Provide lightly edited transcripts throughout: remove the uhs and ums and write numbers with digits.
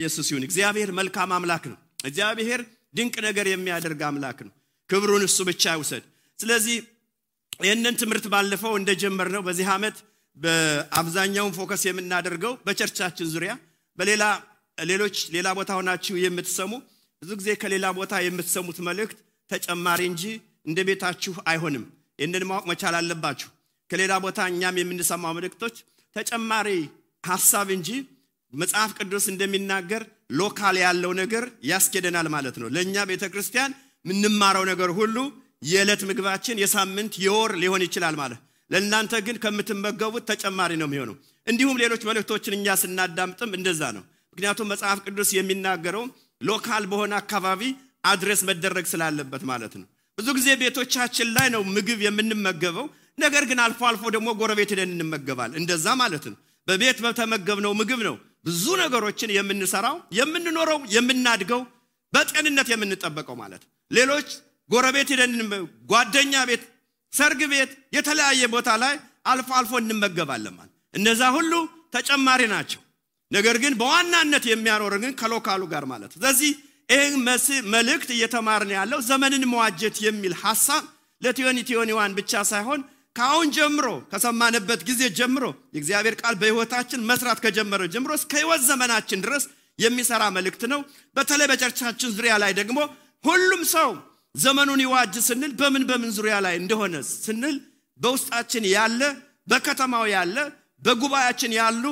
ኢየሱስ ይሁን እግዚአብሔር መልካም አምላክ ነው እግዚአብሔር ድንቅ ነገር የሚያደርግ አምላክ ነው ክብሩን እሱ ብቻ ይውሰድ ስለዚህ ይሄንን ትምርት ባለፈው እንደጀመርነው በዚህ አመት በአብዛኛው ፎከስ የምናደርገው በቸርቻችን ዙሪያ ሌላ ቦታ ሆናችሁ የምትሰሙ ብዙ ጊዜ ከሌላ ቦታ የምትሰሙት መልእክት ተጨማሪ እንጂ እንደቤታችሁ አይሆንም ይሄንን ማወቅ መቻል አለባችሁ ከሌላ ቦታ እኛም የምንሰማው መልእክቶች ተጨማሪ ሐሳብ እንጂ መጽሐፍ ቅዱስ እንደሚናገር ሎካል ያለው ነገር ያስኬደናል ማለት ነው ለኛ ቤተክርስቲያን ምንማረው ነገር ሁሉ የዕለት ምግባችን የሳምንት የወር ሊሆን ይችላል ማለት ለእናንተ ግን ከምትመገቡት ተጨማሪ ነው የሚሆነው እንዲሁም ሌሎች መልእክቶችን እኛ ስናዳምጥም እንደዛ ነው ምክንያቱም መጽሐፍ ቅዱስ የሚናገረው ሎካል በሆነ አካባቢ አድሬስ መደረግ ስላለበት ማለት ነው ብዙ ጊዜ ቤቶቻችን ላይ ነው ምግብ የምንመገበው ነገር ግን አልፎ አልፎ ደግሞ ጎረቤት ሄደን እንመገባል እንደዛ ማለት ነው በቤት በተመገብነው ምግብ ነው ብዙ ነገሮችን የምንሰራው የምንኖረው የምናድገው በጤንነት የምንጠበቀው ማለት ሌሎች ጎረቤት ሄደን ጓደኛ ቤት ሰርግ ቤት የተለያየ ቦታ ላይ አልፎ አልፎ እንመገባለን ማለት እነዛ ሁሉ ተጨማሪ ናቸው ነገር ግን በዋናነት የሚያኖረን ከሎካሉ ጋር ማለት ስለዚህ ይሄን መልእክት እየተማርን ያለው ዘመንን መዋጀት የሚል ሐሳብ ለቲዮኒዋን ብቻ ሳይሆን ካሁን ጀምሮ ከሰማነበት ጊዜ ጀምሮ የእግዚአብሔር ቃል በህይወታችን መስራት ከጀመረ ጀምሮ እስከ ህይወት ዘመናችን ድረስ የሚሰራ መልእክት ነው በተለይ በቸርቻችን ዙሪያ ላይ ደግሞ ሁሉም ሰው ዘመኑን ይዋጅ ስንል በምን ዙሪያ ላይ እንደሆነ ስንል በውስጣችን ያለ በከተማው ያለ በጉባኤያችን ያሉ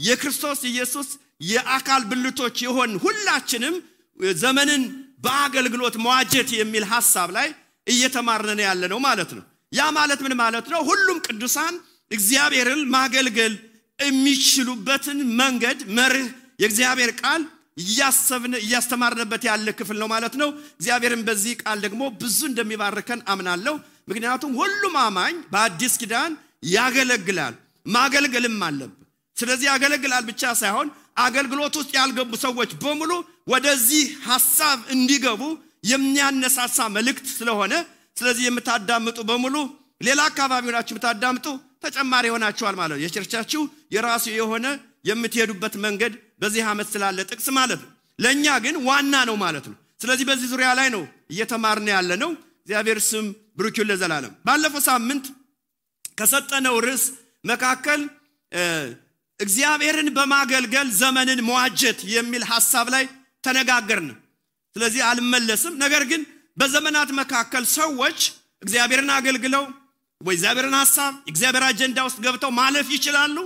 የክርስቶስ ኢየሱስ የአካል ብልቶች ይሆን ሁላችንም ዘመንን በአገልግሎት መዋጀት የሚል ሐሳብ ላይ እየተማርነን ያለ ነው ማለት ነው ያ ማለት ምን ማለት ነው ሁሉም ቅዱሳን እግዚአብሔርን ማገልገል የሚችሉበትን መንገድ መርህ የእግዚአብሔር ቃል እያስተማርነበት ያለ ክፍል ነው ማለት ነው እግዚአብሔርን በዚህ ቃል ደግሞ ብዙ እንደሚባርከን አምናለሁ ምክንያቱም ሁሉም አማኝ በአዲስ ኪዳን ያገለግላል ማገልገልም አለበት ስለዚህ ያገለግላል ብቻ ሳይሆን አገልግሎት ውስጥ ያልገቡ ሰዎች በሙሉ ወደዚህ ሐሳብ እንዲገቡ የሚያነሳሳ መልእክት ስለሆነ ስለዚህ የምታዳምጡ በሙሉ ሌላ አካባቢ ሆናችሁ የምታዳምጡ ተጨማሪ ሆናችኋል ማለት ነው የቸርቻችሁ የራሱ የሆነ የምትሄዱበት መንገድ በዚህ አመት ስላለ ጥቅስ ማለት ነው ለኛ ግን ዋና ነው ማለት ነው ስለዚህ በዚህ ዙሪያ ላይ ነው እየተማርን ያለ ነው እግዚአብሔር ስም ብሩክ ይሁን ለዘላለም ባለፈው ሳምንት ከሰጠነው ርዕስ መካከል እግዚአብሔርን በማገልገል ዘመንን መዋጀት የሚል ሐሳብ ላይ ተነጋገርን ስለዚህ አልመለስም ነገር ግን በዘመናት መካከል ሰዎች እግዚአብሔርን አገልግለው ወይ እግዚአብሔርን ሐሳብ እግዚአብሔር አጀንዳ ውስጥ ገብተው ማለፍ ይችላሉ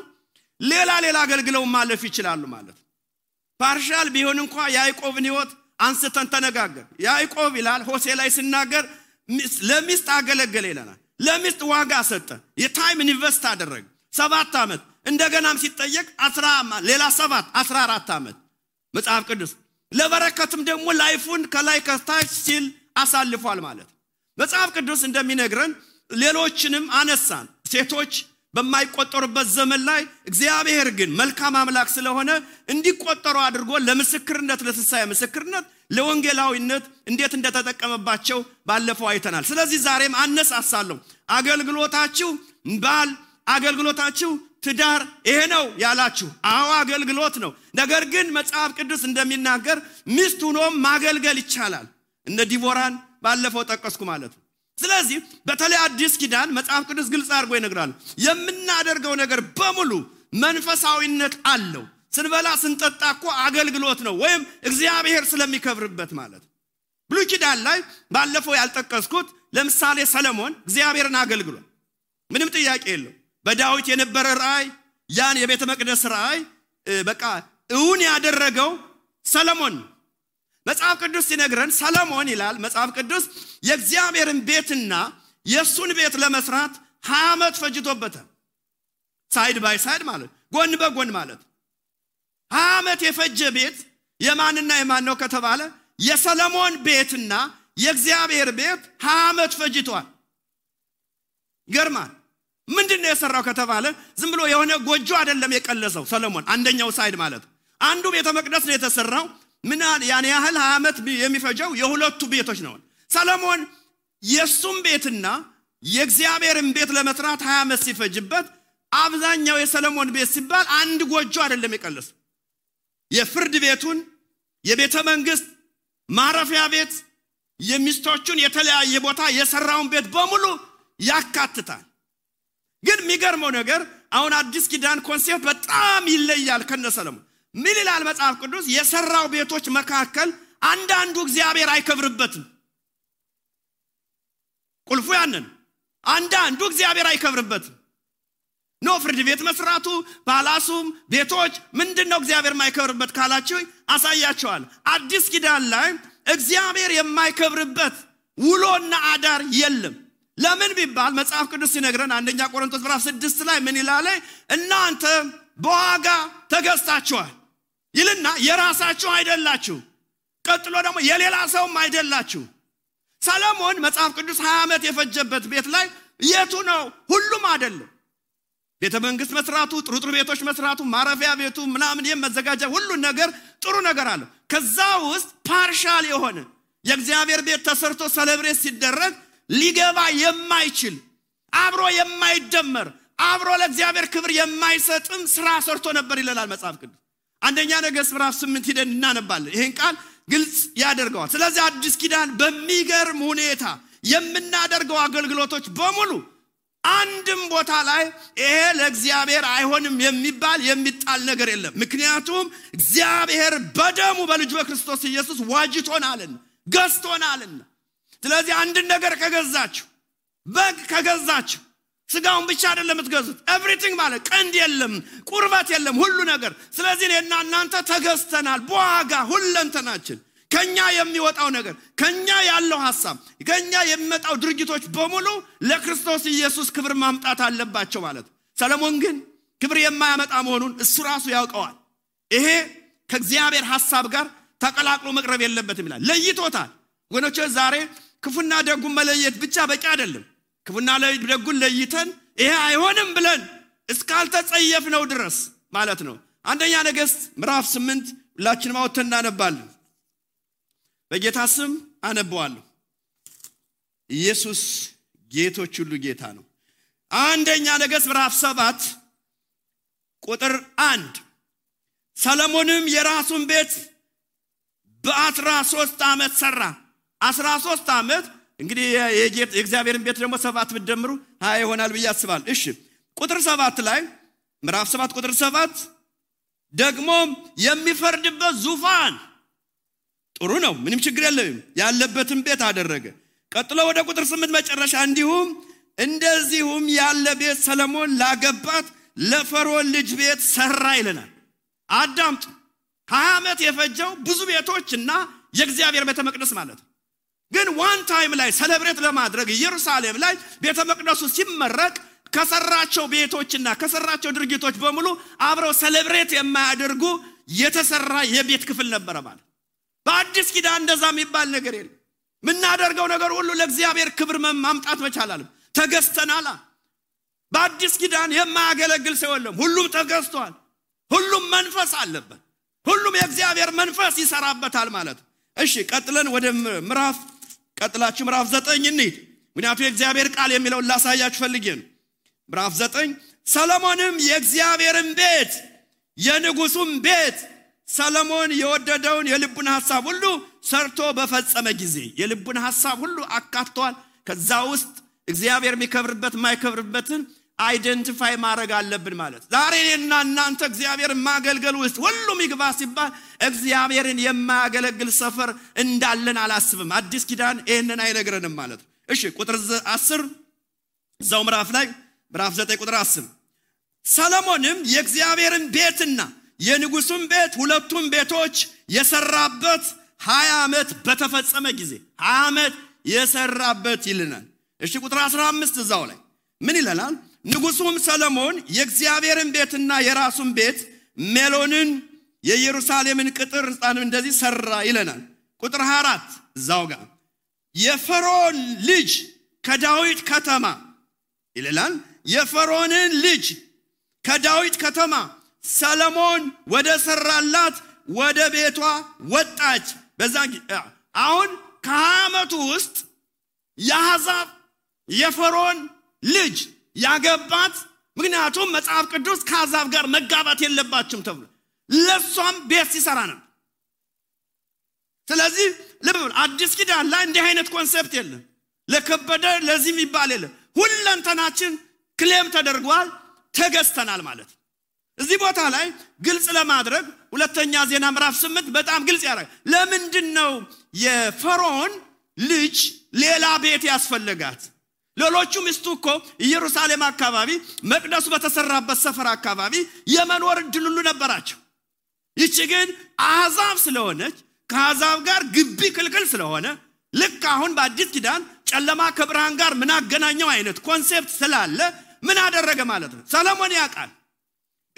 ሌላ አገልግለው ማለፍ ይችላሉ ማለት ፓርሻል ቢሆን እንኳን ያዕቆብን ህይወት አንስተን ተነጋገር ያዕቆብ ይላል ሆሴ ላይ ሲናገር ለሚስት አገለገለ ይላል ለሚስት ዋጋ ሰጠ የታይም ኢንቨስት አደረገ 7 አመት እንደገናም ሲጠየቅ ሌላ 14 አመት መጽሐፍ ቅዱስ ለበረከትም ደግሞ ላይፉን ከላይ ከታች ሲል አሳልፏል ማለት መጽሐፍ ቅዱስ እንደሚነግረን ሌሎችንም አነሳን ሴቶች በማይቆጠሩበት ዘመን ላይ እግዚአብሔር ግን መልካም አምላክ ስለሆነ እንዲቆጠሩ አድርጎ ለምስክርነት ለትንሣኤ ምስክርነት ለወንጌላዊነት እንዴት እንደተጠቀመባቸው ባለፈው አይተናል ስለዚህ ዛሬም አነሳሳለሁ አገልግሎታችሁ ትዳር ይሄ ነው ያላችሁ አዎ አገልግሎት ነው ነገር ግን መጽሐፍ ቅዱስ እንደሚናገር ሚስት ሆኖ ማገልገል ይቻላል እነ ዲቦራን ባለፈው ጠቀስኩ ማለት ነው ስለዚህ በተለይ አዲስ ኪዳን መጽሐፍ ቅዱስ ግልጽ አድርጎ ይነግራል የምናደርገው ነገር በሙሉ መንፈሳዊነት አለው ስንበላ ስንጠጣ እኮ አገልግሎት ነው ወይም እግዚአብሔር ስለሚከብርበት ማለት ብሉይ ኪዳን ላይ ባለፈው ያልጠቀስኩት ለምሳሌ ሰለሞን እግዚአብሔርን አገልግሏል ምንም ጥያቄ የለው በዳዊት የነበረ ራእይ ያን የቤተ መቅደስ ራእይ በቃ እውን ያደረገው ሰለሞን መጽሐፍ ቅዱስ ሲነግረን ሰለሞን ይላል መጽሐፍ ቅዱስ የእግዚአብሔርን ቤትና የሱን ቤት ለመስራት 20 አመት ፈጅቶበታል ሳይድ ባይ ሳይድ ማለት ጎን በጎን ማለት 20 አመት የፈጀ ቤት የማንና የማን ነው ከተባለ የሰለሞን ቤትና የእግዚአብሔር ቤት 20 አመት ፈጅቷል ገርማን ምንድነው የሰራው ከተባለ ዝም ብሎ የሆነ ጎጆ አይደለም የቀለሰው ሰለሞን አንደኛው ሳይድ ማለት አንዱ ቤተ መቅደስ ነው የተሰራው ምን ያን ያህል 20 አመት የሚፈጀው የሁለቱ ቤቶች ነው ሰለሞን የሱም ቤትና የእግዚአብሔርን ቤት ለመስራት 20 አመት ሲፈጅበት አብዛኛው የሰለሞን ቤት ሲባል አንድ ጎጆ አይደለም የቀለሰው የፍርድ ቤቱን የቤተ መንግስት ማረፊያ ቤት የሚስቶቹን የተለያየ ቦታ የሰራውን ቤት በሙሉ ያካትታል። ግን የሚገርመው ነገር አሁን አዲስ ኪዳን ኮንሴፕት በጣም ይለያል ከነሰለሞን። ምን ይላል መጽሐፍ ቅዱስ? የሰራው ቤቶች መካከል አንዳንዱ እግዚአብሔር አይከብርበትም። ቁልፉ ያንን አንዳንዱ እግዚአብሔር አይከብርበትም። ኖ ፍርድ ቤት መስራቱ ፓላሱም ቤቶች ምንድነው እግዚአብሔር የማይከብርበት ካላችሁ አሳያቸዋል። አዲስ ኪዳን ላይ እግዚአብሔር የማይከብርበት ውሎና አዳር የለም። ለምን ቢባል መጽሐፍ ቅዱስ ሲነግረን አንደኛ ቆሮንቶስ ምዕራፍ 6 ላይ ምን ይላል? እናንተ በዋጋ ተገዝታችኋል ይልና የራሳችሁ አይደላችሁ፣ ቀጥሎ ደግሞ የሌላ ሰውም አይደላችሁ። ሰለሞን መጽሐፍ ቅዱስ 20 ዓመት የፈጀበት ቤት ላይ የቱ ነው? ሁሉም አይደለም። ቤተ መንግስት መስራቱ፣ ጥሩ ቤቶች መስራቱ፣ ማረፊያ ቤቱ ምናምን የመዘጋጃ ሁሉ ነገር ጥሩ ነገር አለ። ከዛ ውስጥ ፓርሻል የሆነ የእግዚአብሔር ቤት ተሰርቶ ሴሌብሬት ሲደረግ ሊገባ የማይችል አብሮ የማይደመር አብሮ ለእግዚአብሔር ክብር የማይሰጥም ስራ ሰርቶ ነበር ይላል መጽሐፍ ቅዱስ። አንደኛ ነገሥት ምዕራፍ 8 ሄደን እናነባለን። ይሄን ቃል ግልጽ ያደርገዋል። ስለዚህ አዲስ ኪዳን በሚገርም ሁኔታ የምናደርገው አገልግሎቶች በሙሉ አንድም ቦታ ላይ ይሄ ለእግዚአብሔር አይሆንም የሚባል የሚጣል ነገር የለም። ምክንያቱም እግዚአብሔር በደሙ በልጁ በክርስቶስ ኢየሱስ ዋጅቶናልና ገዝቶናልና። ስለዚህ አንድ ነገር ከገዛችሁ በግ ከገዛችሁ ስጋውን ብቻ አይደለም የምትገዙት፣ ኤቭሪቲንግ ማለት ቀንድ የለም ቁርበት የለም ሁሉ ነገር። ስለዚህ እኔና እናንተ ተገዝተናል በዋጋ ሁለንተናችን። ከኛ የሚወጣው ነገር ከኛ ያለው ሐሳብ ከኛ የሚመጣው ድርጊቶች በሙሉ ለክርስቶስ ኢየሱስ ክብር ማምጣት አለባቸው ማለት። ሰለሞን ግን ክብር የማያመጣ መሆኑን እሱ ራሱ ያውቀዋል። ይሄ ከእግዚአብሔር ሐሳብ ጋር ተቀላቅሎ መቅረብ የለበትም ይላል። ለይቶታል። ወገኖች ዛሬ ክፉና ደጉን መለየት ብቻ በቂ አይደለም። ክፉና ደጉን ለይተን ይሄ አይሆንም ብለን እስካልተጸየፍነው ድረስ ማለት ነው። አንደኛ ነገሥት ምዕራፍ 8 ሁላችንም አውጥተን እናነባለን። በጌታ ስም አነባዋለሁ። ኢየሱስ ጌቶች ሁሉ ጌታ ነው። አንደኛ ነገሥት ምዕራፍ 7 ቁጥር 1 ሰለሞንም የራሱን ቤት በ13 ዓመት ሰራ። 13 ዓመት እንግዲህ የእግዚአብሔርን ቤት ደግሞ 7 ብትደምሩ 20 ይሆናል ብዬ አስባለሁ። እሺ ቁጥር 7 ላይ ምዕራፍ 7 ቁጥር 7 ደግሞ የሚፈርድበት ዙፋን ጥሩ ነው፣ ምንም ችግር የለም ያለበትን ቤት አደረገ። ቀጥሎ ወደ ቁጥር 8 መጨረሻ እንደዚሁም ያለ ቤት ሰለሞን ላገባት ለፈርዖን ልጅ ቤት ሰራ ይለናል። አዳምጡ። 20 ዓመት የፈጀው ብዙ ቤቶችና የእግዚአብሔር ቤተ መቅደስ ማለት ነው። ግን ዋን ታይም ላይ ሴሌብሬት ለማድረግ ኢየሩሳሌም ላይ ቤተ መቅደሱ ሲመረቅ ከሰራቸው ቤቶችና ከሰራቸው ድርጊቶች በሙሉ አብረው ሴሌብሬት የማያደርጉ የተሰራ የቤት ክፍል ነበር ማለት። በአዲስ ኪዳን እንደዛ የሚባል ነገር የለም። ምናደርገው ነገር ሁሉ ለእግዚአብሔር ክብር ማምጣት መቻል አለ። ተገዝተናል። በአዲስ ኪዳን የማያገለግል ሰው የለም። ሁሉም ተገዝቷል። ሁሉም መንፈስ አለበት። ሁሉም የእግዚአብሔር መንፈስ ይሰራበታል ማለት። እሺ ቀጥለን ወደ ምዕራፍ 9 እንሂድ። ምክንያቱም የእግዚአብሔር ቃል የሚለው ላሳያችሁ ፈልጌ ነው። ምዕራፍ 9 ሰለሞንም የእግዚአብሔርን ቤት የንጉሱን ቤት ሰለሞን የወደደውን የልቡን ሐሳብ ሁሉ ሰርቶ በፈጸመ ጊዜ የልቡን ሐሳብ ሁሉ አካቷል። ከዛ ውስጥ እግዚአብሔር የሚከብርበት ማይከብርበትን አይደንቲፋይ ማድረግ አለብን ማለት። ዛሬ እኔና እናንተ እግዚአብሔርን ማገልገል ውስጥ ሁሉም ይግባ ሲባል እግዚአብሔርን የማያገለግል ሰፈር እንዳለን አላስብም። አዲስ ኪዳን ይሄንን አይነግረንም ማለት ነው። እሺ ቁጥር 10 እዛው ምዕራፍ 9 ቁጥር 10 ሰለሞንም የእግዚአብሔርን ቤትና የንጉሱን ቤት ሁለቱም ቤቶች የሰራበት 20 ዓመት በተፈጸመ ጊዜ 20 ዓመት የሰራበት ይልናል። እሺ ቁጥር 15 እዛው ላይ ምን ይላል? ንጉሱም ሰለሞን የእግዚአብሔርን ቤትና የራሱን ቤት ሜሎንን የኢየሩሳሌምን ቅጥር ሕንጻን እንደዚህ ሰራ ይለናል። ቁጥር 24 እዛው ጋር የፈርዖን ልጅ ከዳዊት ከተማ ይላል። የፈርዖንን ልጅ ከዳዊት ከተማ ሰለሞን ወደ ሰራላት ወደ ቤቷ ወጣች። በዛን አሁን ከዓመቱ ውስጥ ያዛብ የፈርዖን ልጅ ያገባት። ምክንያቱም መጽሐፍ ቅዱስ ከአሕዛብ ጋር መጋባት የለባችሁም ተብሎ ለሷም ቤት ሲሰራ ነው። ስለዚህ ልብ አዲስ ኪዳን ላይ እንዲህ አይነት ኮንሰፕት የለም ለከበደ ለዚህም ይባል የለም ሁለንተናችን ክሌም ተደርጓል ተገዝተናል ማለት እዚህ ቦታ ላይ ግልጽ ለማድረግ ሁለተኛ ዜና ምዕራፍ 8 በጣም ግልጽ ያደርጋል ለምንድነው የፈርዖን ልጅ ሌላ ቤት ያስፈልጋት ሌሎቹ ሚስቱኮ ኢየሩሳሌም አካባቢ መቅደሱ በተሰራበት ሰፈር አካባቢ የመኖር እድል ሁሉ ነበራቸው ይቺ ግን አሕዛብ ስለሆነች ከአሕዛብ ጋር ግቢ ክልክል ስለሆነ ልክ አሁን በአዲስ ኪዳን ጨለማ ከብርሃን ጋር ምን አገናኘው አይነት ኮንሴፕት ስላለ ምን አደረገ ማለት ነው ሰሎሞን ያውቃል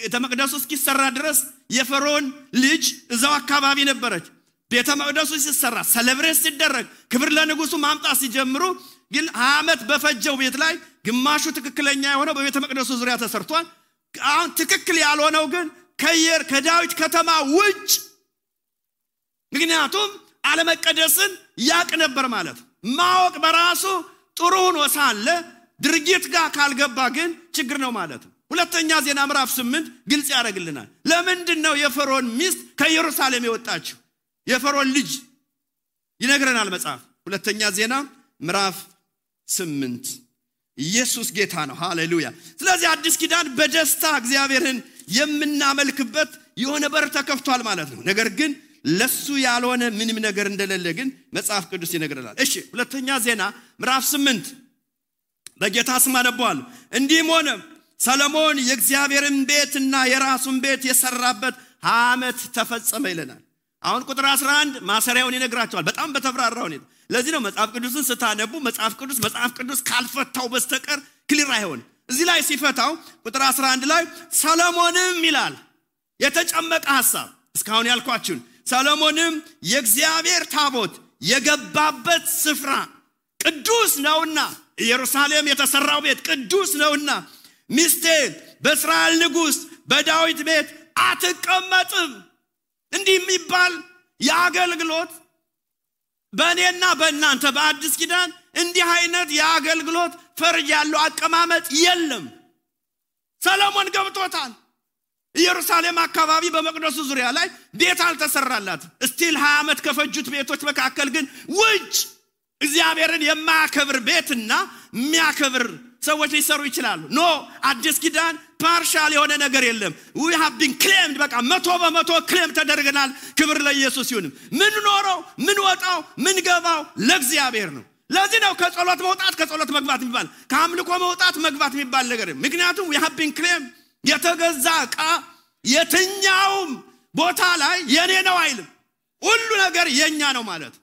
ቤተ መቅደሱ እስኪሰራ ድረስ የፈርዖን ልጅ እዛው አካባቢ ነበረች ቤተ መቅደሱ ሲሰራ ሰለብሬት ሲደረግ ክብር ለንጉሱ ማምጣት ሲጀምሩ ግን ዓመት በፈጀው ቤት ላይ ግማሹ ትክክለኛ የሆነው በቤተ መቅደሱ ዙሪያ ተሰርቷል አሁን ትክክል ያልሆነው ግን ከዳዊት ከተማ ውጭ ምክንያቱም አለመቀደስን ያቅ ነበር ማለት ማወቅ በራሱ ጥሩ ሆኖ ሳለ ድርጊት ጋር ካልገባ ግን ችግር ነው ማለት ሁለተኛ ዜና ምዕራፍ 8 ግልጽ ያደርግልናል ለምንድነው የፈርዖን ሚስት ከኢየሩሳሌም የወጣችው የፈርዖን ልጅ ይነግረናል መጽሐፍ ሁለተኛ ዜና ምዕራፍ 8 ኢየሱስ ጌታ ነው ሃሌሉያ ስለዚህ አዲስ ኪዳን በደስታ እግዚአብሔርን የምናመልክበት የሆነ በር ተከፍቷል ማለት ነው ነገር ግን ለሱ ያልሆነ ምንም ነገር እንደሌለ ግን መጽሐፍ ቅዱስ ይነግረናል እሺ ሁለተኛ ዜና ምዕራፍ 8 በጌታ ስም አነባዋለሁ እንዲህም ሆነ ሰሎሞን የእግዚአብሔርን ቤትና የራሱን ቤት የሰራበት ዓመት ተፈጸመ ይለናል አሁን ቁጥር 11 ማሰሪያውን ይነግራቸዋል በጣም በተብራራው ነው ለዚህ ነው መጽሐፍ ቅዱስን ስታነቡ መጽሐፍ ቅዱስ ካልፈታው በስተቀር ክሊር አይሆን እዚህ ላይ ሲፈታው ቁጥር 11 ላይ ሰሎሞንም ይላል የተጨመቀ ሐሳብ እስካሁን ያልኳችሁ ሰሎሞንም የእግዚአብሔር ታቦት የገባበት ስፍራ ቅዱስ ነውና ኢየሩሳሌም የተሰራው ቤት ቅዱስ ነውና ሚስቴ በእስራኤል ንጉስ በዳዊት ቤት አትቀመጥም እንዲህ የሚባል የአገልግሎት በእኔና በእናንተ በአዲስ ኪዳን እንዲህ አይነት የአገልግሎት ፈርጅ ያለው አቀማመጥ የለም ሰሎሞን ገብቶታል ኢየሩሳሌም አካባቢ በመቅደሱ ዙሪያ ላይ ቤት አልተሰራላት ስቲል 20 ዓመት ከፈጁት ቤቶች መካከል ግን ውጭ እግዚአብሔርን የማያከብር ቤትና የሚያከብር ሰዎች ሊሰሩ ይችላሉ ኖ አዲስ ኪዳን ፓርሻል የሆነ ነገር የለም we have been claimed በቃ 100% ክሌም ተደርገናል ክብር ለኢየሱስ ይሁን ምን ኖረው ምን ወጣው ምን ገባው ለእግዚአብሔር ነው ለዚህ ነው ከጸሎት መውጣት ከጸሎት መግባት የሚባል ከአምልኮ መውጣት መግባት የሚባል ነገር ምክንያቱም we have been claimed የተገዛ ቃ የትኛውም ቦታ ላይ የኔ ነው አይልም ሁሉ ነገር የኛ ነው ማለት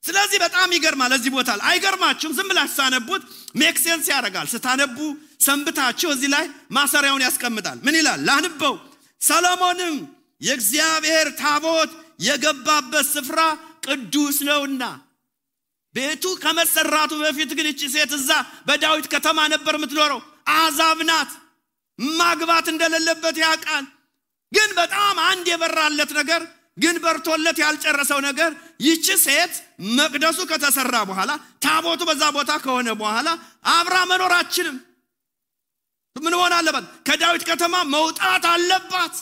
ስለዚህ በጣም ይገርማል እዚህ ቦታ ላይ አይገርማችሁም ዝም ብላችሁ ሳነቡት ሜክ ሴንስ ያደርጋል ስታነቡ ሰንብታችሁ እዚህ ላይ ማሰሪያውን ያስቀምጣል ምን ይላል ላንበው ሰሎሞንም የእግዚአብሔር ታቦት የገባበት ስፍራ ቅዱስ ነውና ቤቱ ከመሰራቱ በፊት ግን እቺ ሴት እዛ በዳዊት ከተማ ነበር የምትኖረው አሕዛብ ናት ማግባት እንደሌለበት ያውቃል ግን በጣም አንድ የበራለት ነገር ግን በርቶለት ያልጨረሰው ነገር ይቺ ሴት መቅደሱ ከተሰራ በኋላ ታቦቱ በዛ ቦታ ከሆነ በኋላ አብራ መኖራችንም ምን ሆነ አለባት ከዳዊት ከተማ መውጣት አለባት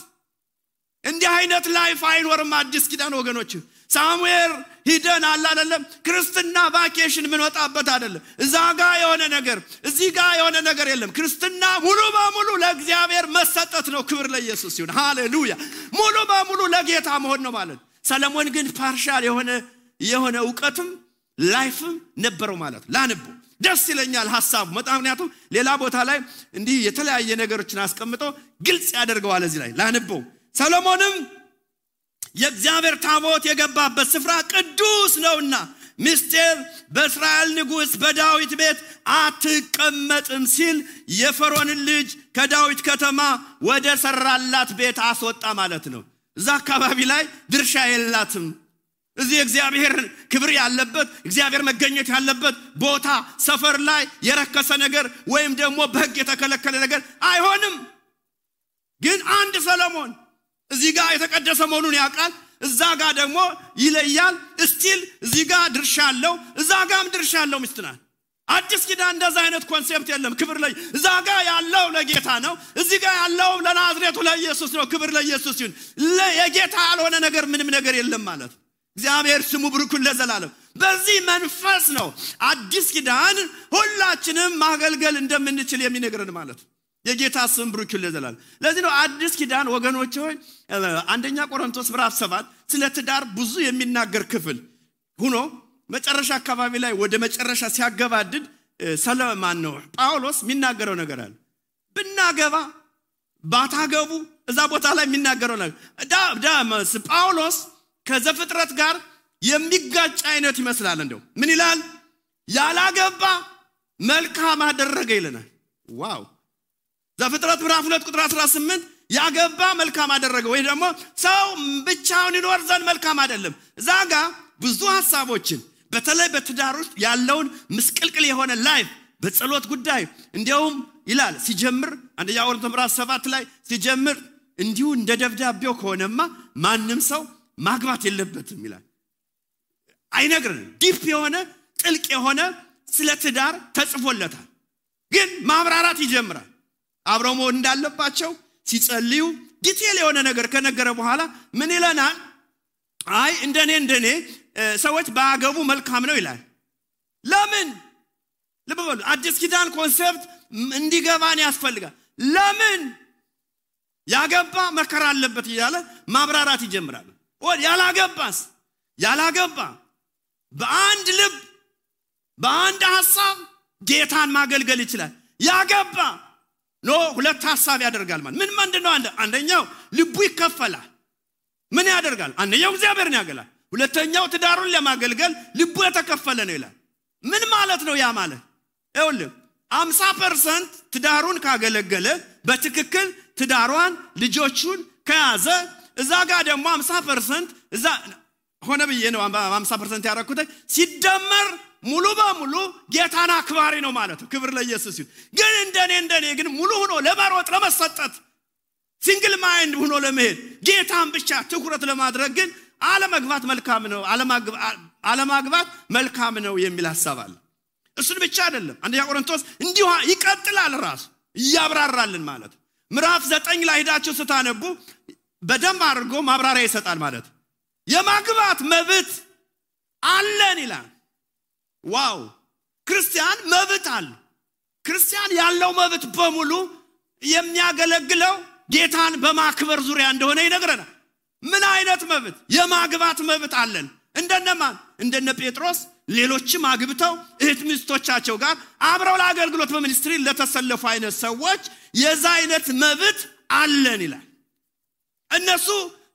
እንዲህ አይነት ላይፍ አይኖርም አዲስ ኪዳን ወገኖች ሳሙኤል ሂደን አላለም ክርስትና ቫኬሽን ምን ወጣበት አይደለም እዛ ጋር የሆነ ነገር እዚህ ጋር የሆነ ነገር የለም ክርስትና ሙሉ በሙሉ ለእግዚአብሔር መሰጠት ነው ክብር ለኢየሱስ ይሁን ሃሌሉያ ሙሉ በሙሉ ለጌታ መሆን ነው ማለት ሰሎሞን ግን ፓርሻል የሆነ ዕውቀትም ላይፍም ነበረው ማለት ላንቡ ደስ ይለኛል ሐሳቡ ምክንያቱም ሌላ ቦታ ላይ እንዲህ የተለያየ ነገሮችን አስቀምጦ ግልጽ ያደርገዋል እዚህ ላይ ላንቡ ሰሎሞንም የእግዚአብሔር ታቦት የገባበት ስፍራ ቅዱስ ነውና ሚስቴ በእስራኤል ንጉስ በዳዊት ቤት አትቀመጥም ሲል የፈርዖን ልጅ ከዳዊት ከተማ ወደ ሰራላት ቤት አስወጣ ማለት ነው እዛ አካባቢ ላይ ድርሻ የላትም እዚህ እግዚአብሔር ክብር ያለበት እግዚአብሔር መገኘት ያለበት ቦታ ሰፈር ላይ የረከሰ ነገር ወይም ደግሞ በሕግ የተከለከለ ነገር አይሆንም ግን አንድ ሰሎሞን እዚህ ጋር የተቀደሰ መሆኑን ያውቃል እዛ ጋር ደግሞ ይለያል ስቲል እዚህ ጋር ድርሻ አለው እዛ ጋርም ድርሻ አለው ሚስትናል አዲስ ኪዳን እንደዛ አይነት ኮንሴፕት የለም ክብር ላይ እዛ ጋር ያለው ለጌታ ነው እዚህ ጋር ያለው ለናዝሬቱ ለኢየሱስ ነው ክብር ለኢየሱስ ይሁን የጌታ ያልሆነ ነገር ምንም ነገር የለም ማለት እግዚአብሔር ስሙ ብሩክ ለዘላለም። በዚህ መንፈስ ነው አዲስ ኪዳን ሁላችንም ማገልገል እንደምንችል የሚነግረን ማለት ነው። የጌታ ስም ብሩክ ለዘላለም። ለዚህ ነው አዲስ ኪዳን ወገኖች ሆይ አንደኛ ቆሮንቶስ ምዕራፍ 7 ስለ ትዳር ብዙ የሚናገር ክፍል ሆኖ መጨረሻ አካባቢ ላይ ወደ መጨረሻ ሲያገባድድ ሰለማን ነው ጳውሎስ የሚናገረው ነገር አለ። ብናገባ ባታገቡ እዛ ቦታ ላይ የሚናገረው ነገር ጳውሎስ ከዘፍጥረት ጋር የሚጋጭ አይነት ይመስላል። እንደው ምን ይላል? ያላገባ መልካም አደረገ ይለናል። ዋው! ዘፍጥረት ምዕራፍ 2 ቁጥር 18 ያገባ መልካም አደረገ ወይ ደግሞ ሰው ብቻውን ይኖር ዘንድ መልካም አይደለም። እዛጋ ብዙ ሐሳቦችን በተለይ በትዳር ውስጥ ያለውን ምስቅልቅል የሆነ ላይፍ በጸሎት ጉዳይ እንዲያውም ይላል ሲጀምር አንደኛ ቆሮንቶስ ምዕራፍ 7 ላይ ሲጀምር እንዲሁ እንደ ደብዳቤው ከሆነማ ማንም ሰው ማግባት የለበትም ይላል። አይነግረንም። ዲፕ የሆነ ጥልቅ የሆነ ስለ ትዳር ተጽፎለታል። ግን ማብራራት ይጀምራል። አብረው መሆን እንዳለባቸው ሲጸልዩ ዲቴል የሆነ ነገር ከነገረ በኋላ ምን ይለናል? አይ እንደኔ ሰዎች ባያገቡ መልካም ነው ይላል። ለምን? ልብ በሉ። አዲስ ኪዳን ኮንሰፕት እንዲገባን ያስፈልጋል። ለምን? ያገባ መከራ አለበት እያለ ማብራራት ይጀምራል። ያላገባ በአንድ ልብ በአንድ ሐሳብ ጌታን ማገልገል ይችላል። ያገባ ሁለት ሐሳብ ያደርጋል ማለት ምን ምንድነው? አንደኛው ልቡ ይከፈላል። ምን ያደርጋል? አንደኛው እግዚአብሔርን ያገለግላል። ሁለተኛው ትዳሩን ለማገልገል ልቡ የተከፈለ ነው ይላል። ምን ማለት ነው ያ ማለት? ይኸውልህ 50% ትዳሩን ካገለገለ በትክክል ትዳሯን ልጆቹን ከያዘ እዛ ጋር ደግሞ 50% እዛ ሆነ ብዬ ነው 50% ያረኩት ሲደመር ሙሉ በሙሉ ጌታን አክባሪ ነው ማለት ነው። ክብር ለኢየሱስ ይሁን። ግን እንደኔ ግን ሙሉ ሆኖ ለማሮጥ ለመሰጠት ሲንግል ማይንድ ሆኖ ለመሄድ ጌታን ብቻ ትኩረት ለማድረግ ግን አለማግባት መልካም ነው አለማግባት መልካም ነው የሚል ሐሳብ አለ። እሱን ብቻ አይደለም አንደኛ ቆሮንቶስ እንዲሁ ይቀጥላል ራሱ ያብራራልን ማለት ምዕራፍ 9 ላይ ሄዳችሁ ስታነቡ በደንብ አድርጎ ማብራሪያ ይሰጣል ማለት የማግባት መብት አለን ይላል። ዋው! ክርስቲያን መብት አለ። ክርስቲያን ያለው መብት በሙሉ የሚያገለግለው ጌታን በማክበር ዙሪያ እንደሆነ ይነግረናል። ምን አይነት መብት? የማግባት መብት አለን። እንደነማን? እንደነ ጴጥሮስ ሌሎችም አግብተው እህት ሚስቶቻቸው ጋር አብረው ለአገልግሎት በሚኒስትሪ ለተሰለፉ አይነት ሰዎች የዛ አይነት መብት አለን ይላል። እነሱ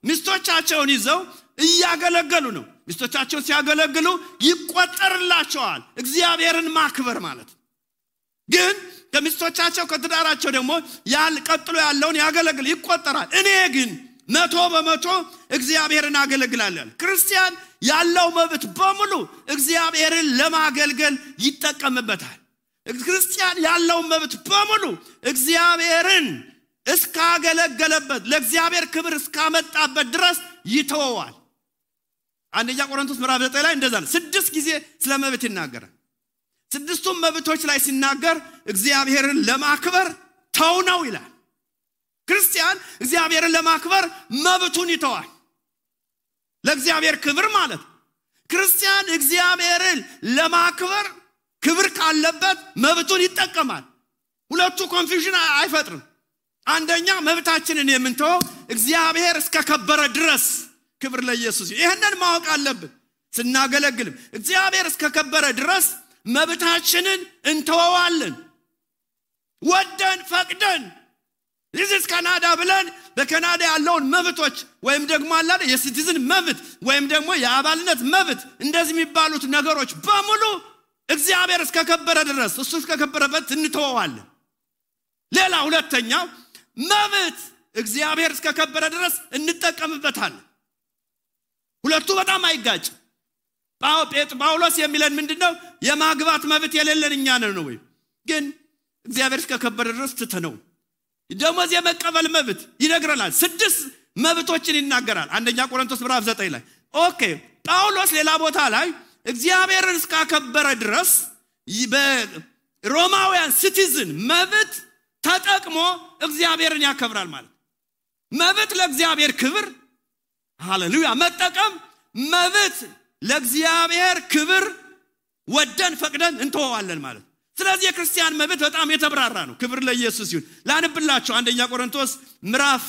ሚስቶቻቸውን ይዘው እያገለገሉ ነው። ሚስቶቻቸውን ሲያገለግሉ ይቆጠርላቸዋል እግዚአብሔርን ማክበር ማለት። ግን ከሚስቶቻቸው ከትዳራቸው ደግሞ ቀጥሎ ያለውን ያገለግል ይቆጠራል። እኔ ግን 100% እግዚአብሔርን አገለግላለሁ። ክርስቲያን ያለው መብት በሙሉ እግዚአብሔርን ለማገልገል ይጠቀምበታል። ክርስቲያን ያለው መብት በሙሉ እግዚአብሔርን እስካገለገለበት ለእግዚአብሔር ክብር እስካመጣበት ድረስ ይተወዋል። አንደኛ ቆሮንቶስ ምዕራፍ 9 ላይ እንደዛ ነው 6 ጊዜ ስለ መብት ይናገራል። 6ቱም መብቶች ላይ ሲናገር እግዚአብሔርን ለማክበር ተው ነው ይላል። ክርስቲያን እግዚአብሔርን ለማክበር መብቱን ይተዋል። ለእግዚአብሔር ክብር ማለት ክርስቲያን እግዚአብሔርን ለማክበር ክብር ካለበት መብቱን ይጠቀማል። ሁለቱ ኮንፊውዥን አይፈጥርም። አንደኛ መብታችንን የምንተው እግዚአብሔር እስከከበረ ድረስ ክብር ለኢየሱስ። ይሄንን ማወቅ አለብን። ስናገለግልም እግዚአብሔር እስከከበረ ድረስ መብታችንን እንተዋዋለን። ወደን ፈቅደን this ካናዳ ብለን በካናዳ ያለውን መብቶች ወይም ደግሞ አላለ የሲቲዝን መብት ወይም ደግሞ የአባልነት መብት እንደዚህ የሚባሉት ነገሮች በሙሉ እግዚአብሔር እስከከበረ ድረስ እሱ እስከከበረበት እንተዋዋለን። ሌላ ሁለተኛው መብት እግዚአብሔር እስከከበረ ድረስ እንጠቀምበታለን። ሁለቱ በጣም አይጋጭ። ጳውሎስ የሚለን ምንድነው? የማግባት መብት የሌለን እኛ ነን ነው ወይ? ግን እግዚአብሔር እስከከበረ ድረስ ትተነው ደሞዝ የመቀበል መብት ይነግረናል። 6 መብቶችን ይናገራል አንደኛ ቆሮንቶስ ምዕራፍ 9 ላይ። ኦኬ ጳውሎስ ሌላ ቦታ ላይ እግዚአብሔርን እስከከበረ ድረስ በሮማውያን ሲቲዝን መብት ተጠቅሞ እግዚአብሔርን ያከብራል ማለት። መብት ለእግዚአብሔር ክብር ሃሌሉያ መጠቀም መብት ለእግዚአብሔር ክብር ወደን ፈቅደን እንተዋለን ማለት። ስለዚህ የክርስቲያን መብት በጣም የተብራራ ነው። ክብር ለኢየሱስ ይሁን። ላንብላችሁ አንደኛ ቆሮንቶስ ምዕራፍ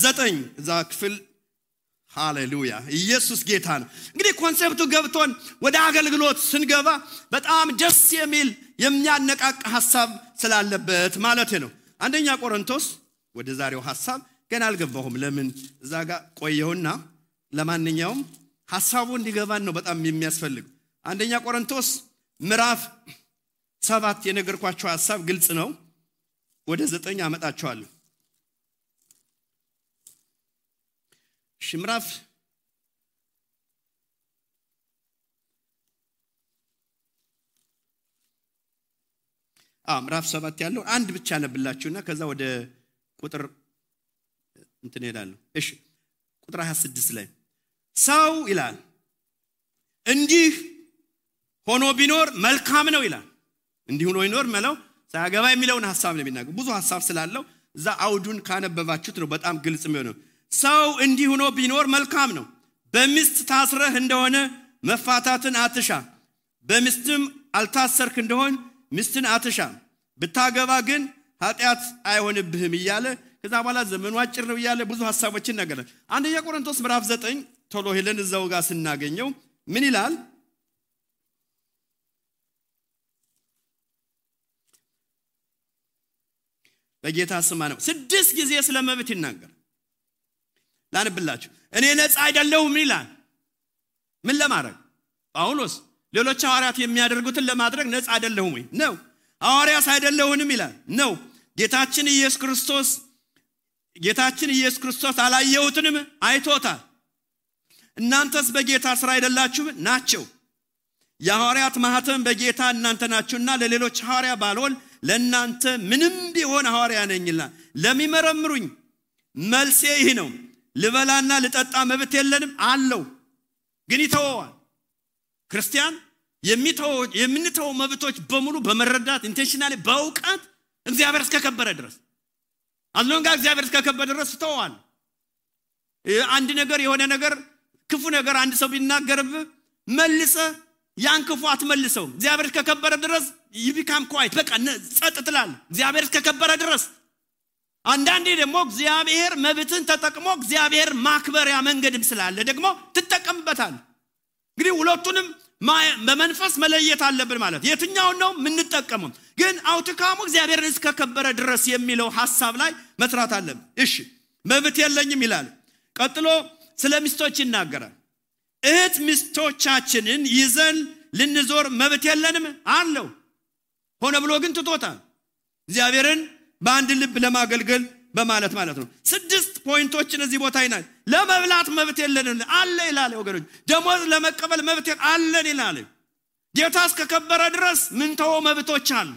9 እዛ ክፍል ሃሌሉያ ኢየሱስ ጌታ ነው። እንግዲህ ኮንሴፕቱ ገብቶን ወደ አገልግሎት ስንገባ በጣም ደስ የሚል የሚያነቃቃ ሐሳብ ስላለበት ማለት ነው። አንደኛ ቆሮንቶስ ወደ ዛሬው ሐሳብ ገና አልገባሁም። ለምን እዛ ጋር ቆየውና ለማንኛውም ሐሳቡ እንዲገባን ነው በጣም የሚያስፈልግ። አንደኛ ቆሮንቶስ ምዕራፍ 7 የነገርኳችሁ ሐሳብ ግልጽ ነው። ወደ 9 አመጣችኋለሁ። ምዕራፍ ምዕራፍ 7 ያለው አንድ ብቻ ነብላችሁና ከዛ ወደ ቁጥር እንትን ሄዳለሁ። እሺ ቁጥር 26 ላይ ሰው ይላል እንዲህ ሆኖ ቢኖር መልካም ነው ይላል። እንዲህ ሆኖ ይኖር ማለት ሳያገባ የሚለውን ሐሳብ ነው የሚናገር። ብዙ ሐሳብ ስላለው እዛ አውዱን ካነበባችሁት ነው በጣም ግልጽ የሚሆነው። ሰው እንዲህ ሆኖ ቢኖር መልካም ነው። በሚስት ታስረህ እንደሆነ መፋታትን አትሻ፣ በሚስትም አልታሰርክ እንደሆነ ሚስትን አትሻ፣ ብታገባ ግን ኃጢአት አይሆንብህም እያለ ከዛ በኋላ ዘመኑ አጭር ነው እያለ ብዙ ሐሳቦችን ነገር። አንደኛ ቆሮንቶስ ምዕራፍ 9 ቶሎ ሄለን እዛው ጋር ስናገኘው ምን ይላል? በጌታ ስም ነው 6 ጊዜ ስለ መብት ይናገር። ላንብላችሁ። እኔ ነፃ አይደለሁም ይላል። ምን ለማድረግ? ጳውሎስ ሌሎች ሐዋርያት የሚያደርጉትን ለማድረግ ነፃ አይደለሁም ወይ ነው። ሐዋርያስ አይደለሁንም ይላል ነው። ጌታችን ኢየሱስ ክርስቶስ አላየሁትንም አይቶታል። እናንተስ በጌታ ስራ አይደላችሁ ናቸው። የሐዋርያት ማህተም በጌታ እናንተ ናችሁና ለሌሎች ሐዋርያ ባልሆን ለእናንተ ምንም ቢሆን ሐዋርያ ነኝና ለሚመረምሩኝ መልሴ ይህ ነው። ልበላና ልጠጣ መብት የለንም አለው፣ ግን ይተወዋል። ክርስቲያን የምንተው መብቶች በሙሉ በመረዳት ኢንቴንሽናሊ በእውቀት እግዚአብሔር እስከከበረ ድረስ አዝሎንጋ እግዚአብሔር እስከከበረ ድረስ ተወዋል። አንድ ነገር የሆነ ነገር ክፉ ነገር አንድ ሰው ቢናገርብ መልሰ ያን ክፉ አትመልሰው። እግዚአብሔር እስከከበረ ድረስ ይቢካም ኳይት በቃ ጸጥ ትላለህ እግዚአብሔር እስከከበረ ድረስ። አንዳንዴ ደግሞ እግዚአብሔር መብትን ተጠቅሞ እግዚአብሔር ማክበሪያ መንገድም ስላለ ደግሞ ትጠቀምበታል። እንግዲህ ሁለቱንም በመንፈስ መለየት አለብን ማለት የትኛው ነው የምንጠቀመው። ግን አውትካሙ እግዚአብሔርን እስከከበረ ድረስ የሚለው ሐሳብ ላይ መስራት አለብን። እሺ መብት የለኝም ይላል። ቀጥሎ ስለ ሚስቶች ይናገራል። እህት ሚስቶቻችንን ይዘን ልንዞር መብት የለንም አለው። ሆነ ብሎ ግን ትቶታል። እግዚአብሔርን በአንድ ልብ ለማገልገል በማለት ማለት ነው። 6 ፖይንቶችን እዚህ ቦታ ይናል። ለመብላት መብት የለንም አለ ይላል ወገኖች። ደሞዝ ለመቀበል መብት አለን ይላል። ጌታ እስከከበረ ድረስ ምን ተው መብቶች አሉ።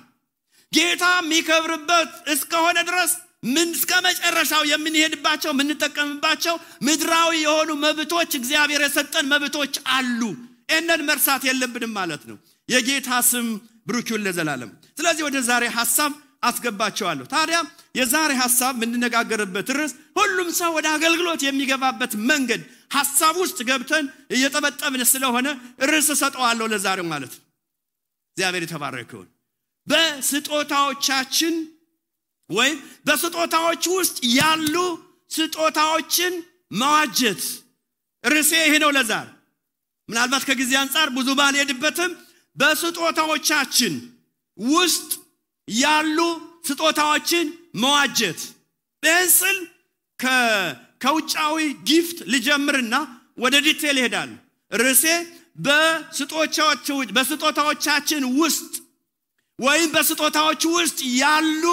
ጌታ የሚከብርበት እስከሆነ ድረስ ምን እስከ መጨረሻው የምንሄድባቸው የምንጠቀምባቸው ምድራዊ የሆኑ መብቶች እግዚአብሔር የሰጠን መብቶች አሉ። እነን መርሳት የለብንም ማለት ነው። የጌታ ስም ብሩክ ይሁን ለዘላለም። ስለዚህ ወደ ዛሬ ሐሳብ አስገባቸዋለሁ። ታዲያ የዛሬ ሐሳብ የምንነጋገርበት ርዕስ ሁሉም ሰው ወደ አገልግሎት የሚገባበት መንገድ ሐሳብ ውስጥ ገብተን እየተበጠብን ስለሆነ ርዕስ ሰጠዋለሁ ለዛሬው ማለት ነው። እግዚአብሔር የተባረከ ይሁን። በስጦታዎቻችን ወይ በስጦታዎች ውስጥ ያሉ ስጦታዎችን መዋጀት ርዕሴ ይሄ ነው ለዛሬ። ምናልባት ከጊዜ አንፃር ብዙ ባልሄድበትም በስጦታዎቻችን ውስጥ ያሉ ስጦታዎችን መዋጀት በእንስል ከውጫዊ ጊፍት ልጀምርና ወደ ዲቴል ይሄዳል። ርዕሴ በስጦታዎቻችን ውስጥ ወይም በስጦታዎች ውስጥ ያሉ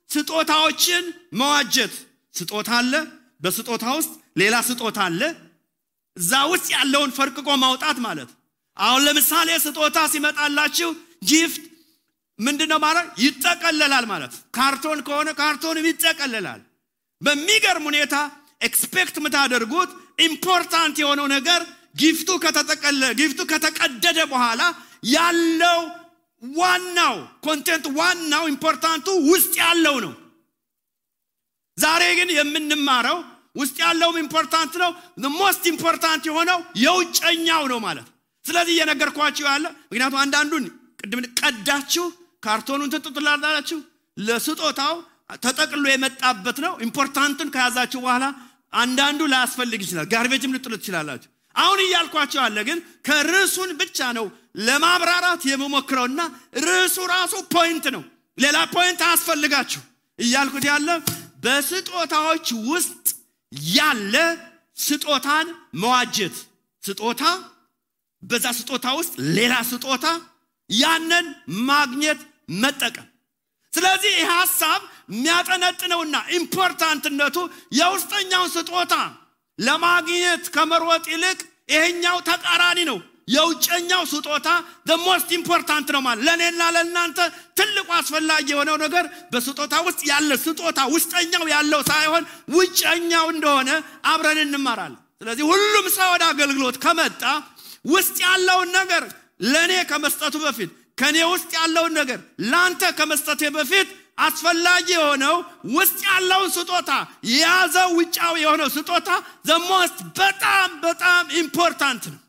ስጦታዎችን መዋጀት። ስጦታ አለ፣ በስጦታ ውስጥ ሌላ ስጦታ አለ። እዛ ውስጥ ያለውን ፈርቅቆ ማውጣት ማለት። አሁን ለምሳሌ ስጦታ ሲመጣላችሁ ጊፍት ምንድነው ማለት? ይጠቀለላል ማለት። ካርቶን ከሆነ ካርቶንም ይጠቀለላል። በሚገርም ሁኔታ ኤክስፔክት ምታደርጉት ኢምፖርታንት የሆነው ነገር ጊፍቱ ከተቀደደ በኋላ ያለው ዋናው ኮንቴንት ዋናው ኢምፖርታንቱ ውስጥ ያለው ነው። ዛሬ ግን የምንማረው ውስጥ ያለውም ኢምፖርታንት ነው the most important የሆነው የውጨኛው ነው ማለት ስለዚህ እየነገርኳችሁ ያለ ምክንያቱም አንዳንዱን ቅድም ቀዳችሁ ካርቶኑን ትጥጥላላችሁ ለስጦታው ተጠቅሎ የመጣበት ነው ኢምፖርታንትን ከያዛችሁ በኋላ አንዳንዱ ላያስፈልግ ይችላል ጋርቤጅም ልጥሉት ይችላልላችሁ አሁን እያልኳችሁ አለ ግን ከርዕሱን ብቻ ነው ለማብራራት የምሞክረውና ርዕሱ ራሱ ፖይንት ነው ሌላ ፖይንት አያስፈልጋችሁ እያልኩት ያለ በስጦታዎች ውስጥ ያለ ስጦታን መዋጀት ስጦታ በዛ ስጦታ ውስጥ ሌላ ስጦታ ያንን ማግኘት መጠቀም ስለዚህ ይህ ሐሳብ የሚያጠነጥነውና ኢምፖርታንትነቱ የውስጠኛውን ስጦታ ለማግኘት ከመሮጥ ይልቅ ይሄኛው ተቃራኒ ነው የውጨኛው ስጦታ the most important ነው ማለት ለኔና ለእናንተ ትልቁ አስፈላጊ የሆነው ነገር በስጦታ ውስጥ ያለ ስጦታ ውስጠኛው ያለው ሳይሆን ውጨኛው እንደሆነ አብረን እንማራለን ስለዚህ ሁሉም ሰው ወደ አገልግሎት ከመጣ ውስጥ ያለውን ነገር ለኔ ከመስጠቱ በፊት ከኔ ውስጥ ያለውን ነገር ላንተ ከመስጠቴ በፊት አስፈላጊ የሆነው ውስጥ ያለውን ስጦታ ያዘው ውጫው የሆነው ስጦታ the most በጣም ኢምፖርታንት ነው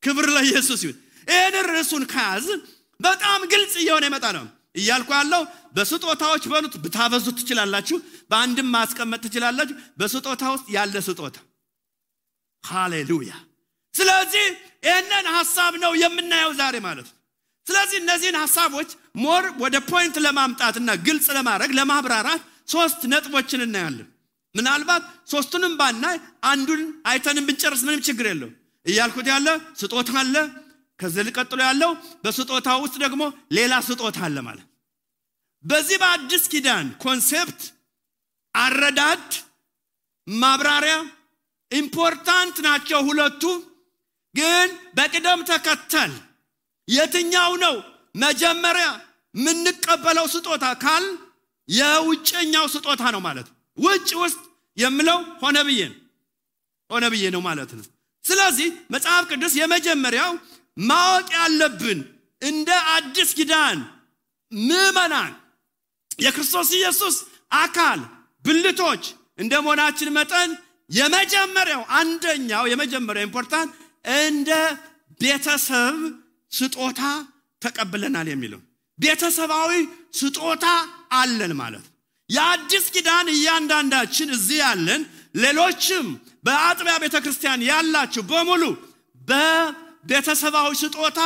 ክብር ለኢየሱስ ይሁን ይሄን ርዕሱን ካዝ በጣም ግልጽ እየሆነ ይመጣ ነው እያልኩ ያለው በስጦታዎች በሉት ብታበዙት ትችላላችሁ በአንድም ማስቀመጥ ትችላላችሁ በስጦታ ውስጥ ያለ ስጦታ ሃሌሉያ ስለዚህ ይሄንን ሐሳብ ነው የምናየው ዛሬ ማለት ነው ስለዚህ እነዚህን ሐሳቦች ሞር ወደ ፖይንት ለማምጣትና ግልጽ ለማድረግ ለማብራራት ሶስት ነጥቦችን እናያለን ምናልባት ሶስቱንም ባናይ አንዱን አይተንም ብንጨርስ ምንም ችግር የለው እያልኩት ያለ ስጦታ አለ ከዚህ ቀጥሎ ያለው በስጦታው ውስጥ ደግሞ ሌላ ስጦታ አለ ማለት በዚህ በአዲስ ኪዳን ኮንሴፕት አረዳድ ማብራሪያ ኢምፖርታንት ናቸው ሁለቱ ግን በቅደም ተከተል የትኛው ነው መጀመሪያ ምንቀበለው ስጦታ ካል የውጭኛው ስጦታ ነው ማለት ውጭ ውስጥ የምለው ሆነ ብዬ ነው ማለት ነው ስለዚህ መጽሐፍ ቅዱስ የመጀመሪያው ማወቅ ያለብን እንደ አዲስ ኪዳን ምዕመናን የክርስቶስ ኢየሱስ አካል ብልቶች እንደመሆናችን መጠን የመጀመሪያው ኢምፖርታንት እንደ ቤተሰብ ስጦታ ተቀበለናል የሚለው ቤተሰባዊ ስጦታ አለን ማለት የአዲስ ኪዳን እያንዳንዳችን እዚህ ያለን ሌሎችም በአጥቢያ ቤተክርስቲያን ያላችሁ በሙሉ በቤተሰባዊ ስጦታ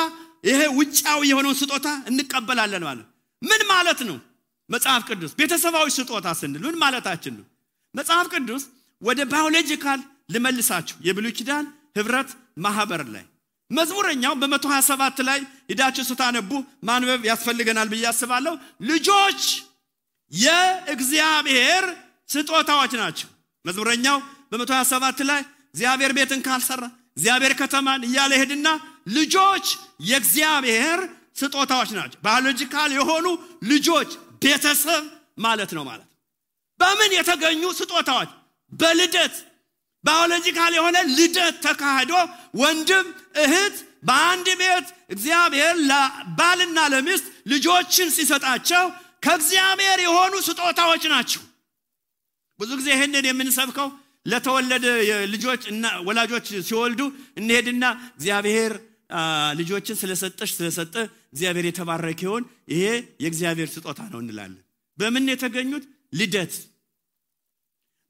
ይሄ ውጫው የሆነው ስጦታ እንቀበላለን ማለት ምን ማለት ነው መጽሐፍ ቅዱስ ቤተሰባዊ ስጦታ ስንል ምን ማለታችን ነው መጽሐፍ ቅዱስ ወደ ባዮሎጂካል ልመልሳችሁ የብሉይ ኪዳን ህብረት ማህበር ላይ መዝሙረኛው በ127 ላይ ሄዳችሁ ስታነቡ ማንበብ ያስፈልገናል በያስባለው ልጆች የእግዚአብሔር ስጦታዎች ናቸው መዝሙረኛው በ127 ላይ እግዚአብሔር ቤትን ካልሰራ እግዚአብሔር ከተማን እያለ ሄድና ልጆች የእግዚአብሔር ስጦታዎች ናቸው ባዮሎጂካል የሆኑ ልጆች ቤተሰብ ማለት ነው ማለት በምን የተገኙ ስጦታዎች በልደት ባዮሎጂካል የሆነ ልደት ተካሂዶ ወንድም እህት በአንድ ቤት እግዚአብሔር ለባልና ለሚስት ልጆችን ሲሰጣቸው ከእግዚአብሔር የሆኑ ስጦታዎች ናቸው ብዙ ጊዜ ይሄንን የምንሰብከው ለተወለደ ልጆች እና ወላጆች ሲወልዱ እንሄድና እግዚአብሔር ልጆችን ስለሰጠ እግዚአብሔር የተባረከ ይሁን ይሄ የእግዚአብሔር ስጦታ ነው እንላለን በምን የተገኙት ልደት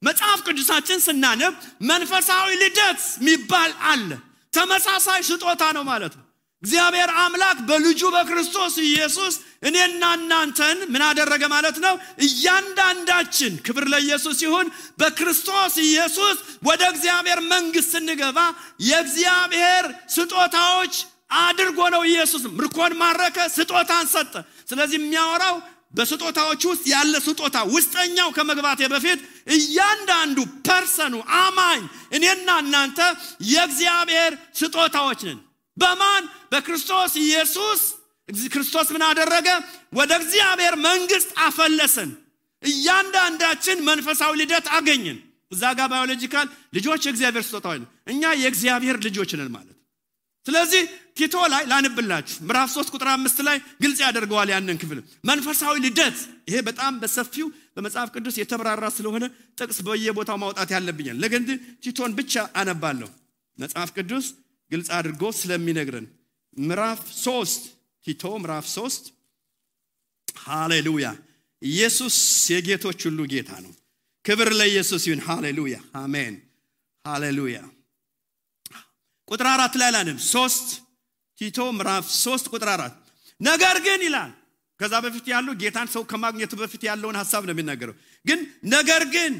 መጽሐፍ ቅዱሳችን ስናነብ መንፈሳዊ ልደት የሚባል አለ ተመሳሳይ ስጦታ ነው ማለት ነው እግዚአብሔር አምላክ በልጁ በክርስቶስ ኢየሱስ እኔና እናንተን ምን አደረገ ማለት ነው እያንዳንዳችን ክብር ለኢየሱስ ይሁን በክርስቶስ ኢየሱስ ወደ እግዚአብሔር መንግስት እንገባ የእግዚአብሔር ስጦታዎች አድርጎ ነው ኢየሱስ ምርኮን ማረከ ስጦታን ሰጠ ስለዚህ የሚያወራው በስጦታዎች ውስጥ ያለ ስጦታ ውስጠኛው ከመግባቴ በፊት እያንዳንዱ ፐርሰኑ አማኝ እኔና እናንተ የእግዚአብሔር ስጦታዎች ነን በማን በክርስቶስ ኢየሱስ ክርስቶስ ምን አደረገ ወደ እግዚአብሔር መንግስት አፈለሰን እያንዳንዳችን መንፈሳዊ ልደት አገኘን እዛ ጋር ባዮሎጂካል ልጆች የእግዚአብሔር ስጦታዎች ነን እኛ የእግዚአብሔር ልጆች ነን ማለት ስለዚህ ቲቶ ላይ ላንብላችሁ ምዕራፍ 3 ቁጥር 5 ላይ ግልጽ ያደርገዋል ያንን ክፍል መንፈሳዊ ልደት ይሄ በጣም በሰፊው በመጽሐፍ ቅዱስ የተብራራ ስለሆነ ጥቅስ በየቦታው ማውጣት ያለብኛል። ለግን ቲቶን ብቻ አነባለሁ። መጽሐፍ ቅዱስ ግልጽ አድርጎ ስለሚነግረን ምዕራፍ 3 ቲቶ ምዕራፍ 3 ሃሌሉያ። ኢየሱስ የጌቶች ሁሉ ጌታ ነው። ክብር ለኢየሱስ ይሁን። ሃሌሉያ አሜን ሃሌሉያ። ቁጥር 4 ላይ አላንም 3 ቲቶ ምዕራፍ 3 ቁጥር 4 ነገር ግን ይላል። ከዛ በፊት ያለው ጌታን ሰው ከማግኘቱ በፊት ያለውን ሐሳብ ነው የሚናገረው። ግን ነገር ግን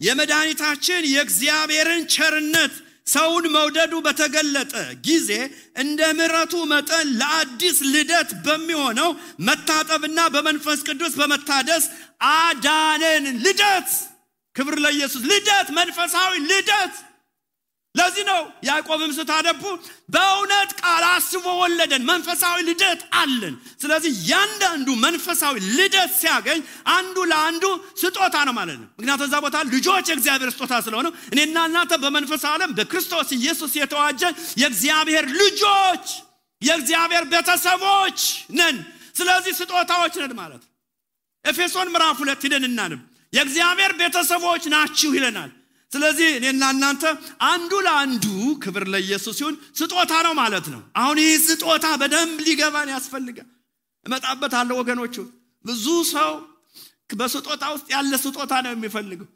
የመድኃኒታችን የእግዚአብሔርን ቸርነት ሰውን መውደዱ በተገለጠ ጊዜ እንደ ምሕረቱ መጠን ለአዲስ ልደት በሚሆነው መታጠብና በመንፈስ ቅዱስ በመታደስ አዳነን። ልደት ክብር ለኢየሱስ። ልደት መንፈሳዊ ልደት። ለዚህ ነው ያዕቆብም ስታነቡ በእውነት ቃል አስቦ ወለደን። መንፈሳዊ ልደት አለን። ስለዚህ ያንዳንዱ መንፈሳዊ ልደት ሲያገኝ አንዱ ለአንዱ ስጦታ ነው ማለት ነው። ምክንያቱም እዛ ቦታ ልጆች የእግዚአብሔር ስጦታ ስለሆነ እኔና እናንተ በመንፈሳዊ ዓለም በክርስቶስ ኢየሱስ የተዋጀን የእግዚአብሔር ልጆች የእግዚአብሔር ቤተሰቦች ነን። ስለዚህ ስጦታዎች ነን ማለት ነው። ኤፌሶን ምዕራፍ 2 ሄደን እናንብ። የእግዚአብሔር ቤተሰቦች ናችሁ ይለናል። ስለዚህ እኔና እናንተ አንዱ ለአንዱ ክብር ለኢየሱስ ይሁን ስጦታ ነው ማለት ነው። አሁን ይህ ስጦታ በደንብ ሊገባን ያስፈልጋል። እመጣበታለሁ ወገኖቹ። ብዙ ሰው በስጦታ ውስጥ ያለ ስጦታ ነው የሚፈልገው።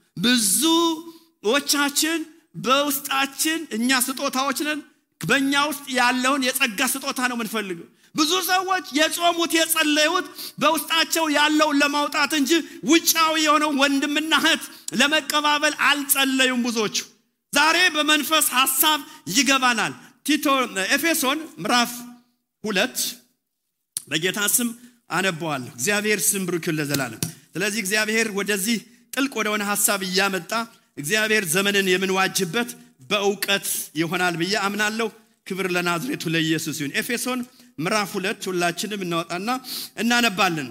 ብዙዎቻችን በውስጣችን እኛ ስጦታዎች ነን። በእኛ ውስጥ ያለውን የጸጋ ስጦታ ነው የምንፈልገው። ብዙ ሰዎች የጾሙት የጸለዩት በውስጣቸው ያለውን ለማውጣት እንጂ ውጫዊ የሆነው ወንድምና እህት ለመቀባበል አልጸለዩም ብዙዎቹ። ዛሬ በመንፈስ ሐሳብ ይገባናል። ቲቶ ኤፌሶን ምዕራፍ 2 በጌታ ስም አነባዋለሁ። እግዚአብሔር ስም ብሩክ ይሁን ለዘላለም። ስለዚህ እግዚአብሔር ወደዚህ ጥልቅ ወደሆነ ሐሳብ እያመጣ እግዚአብሔር ዘመንን የምንዋጅበት በእውቀት ይሆናል ብዬ አምናለሁ። ክብር ለናዝሬቱ ለኢየሱስ ይሁን። ኤፌሶን ምዕራፍ 2 ሁላችንም እናወጣና እናነባለን።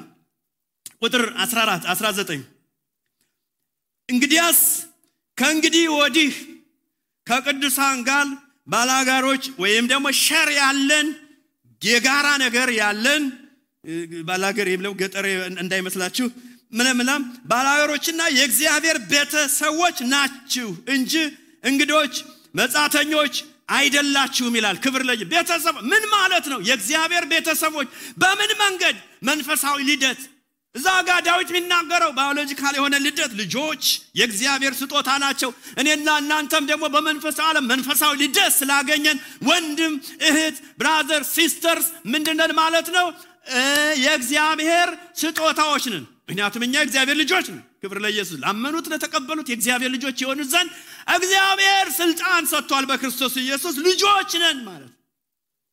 ቁጥር 14 19 እንግዲያስ ከእንግዲህ ወዲህ ከቅዱሳን ጋር ባላጋሮች ወይም ደግሞ ሸር ያለን የጋራ ነገር ያለን ባላገር ይብለው ገጠር እንዳይመስላችሁ ምንምናም ባላጋሮችና የእግዚአብሔር ቤተሰቦች ናችሁ እንጂ እንግዶች መጻተኞች አይደላችሁም ይላል። ክብር ለኢየሱስ። ቤተሰብ ምን ማለት ነው? የእግዚአብሔር ቤተሰቦች በምን መንገድ? መንፈሳዊ ልደት። እዛ ጋር ዳዊት የሚናገረው ባዮሎጂካል የሆነ ልደት ልጆች የእግዚአብሔር ስጦታ ናቸው። እኔና እናንተም ደግሞ በመንፈሳዊ ዓለም መንፈሳዊ ልደት ስላገኘን ወንድም እህት ብራዘር ሲስተርስ ምንድነን ማለት ነው? የእግዚአብሔር ስጦታዎች ነን። ምክንያቱም እኛ የእግዚአብሔር ልጆች ነን። ክብር ለኢየሱስ። ላመኑት ለተቀበሉት የእግዚአብሔር ልጆች የሆኑ ዘንድ እግዚአብሔር ስልጣን ሰጥቷል በክርስቶስ ኢየሱስ ልጆች ነን ማለት።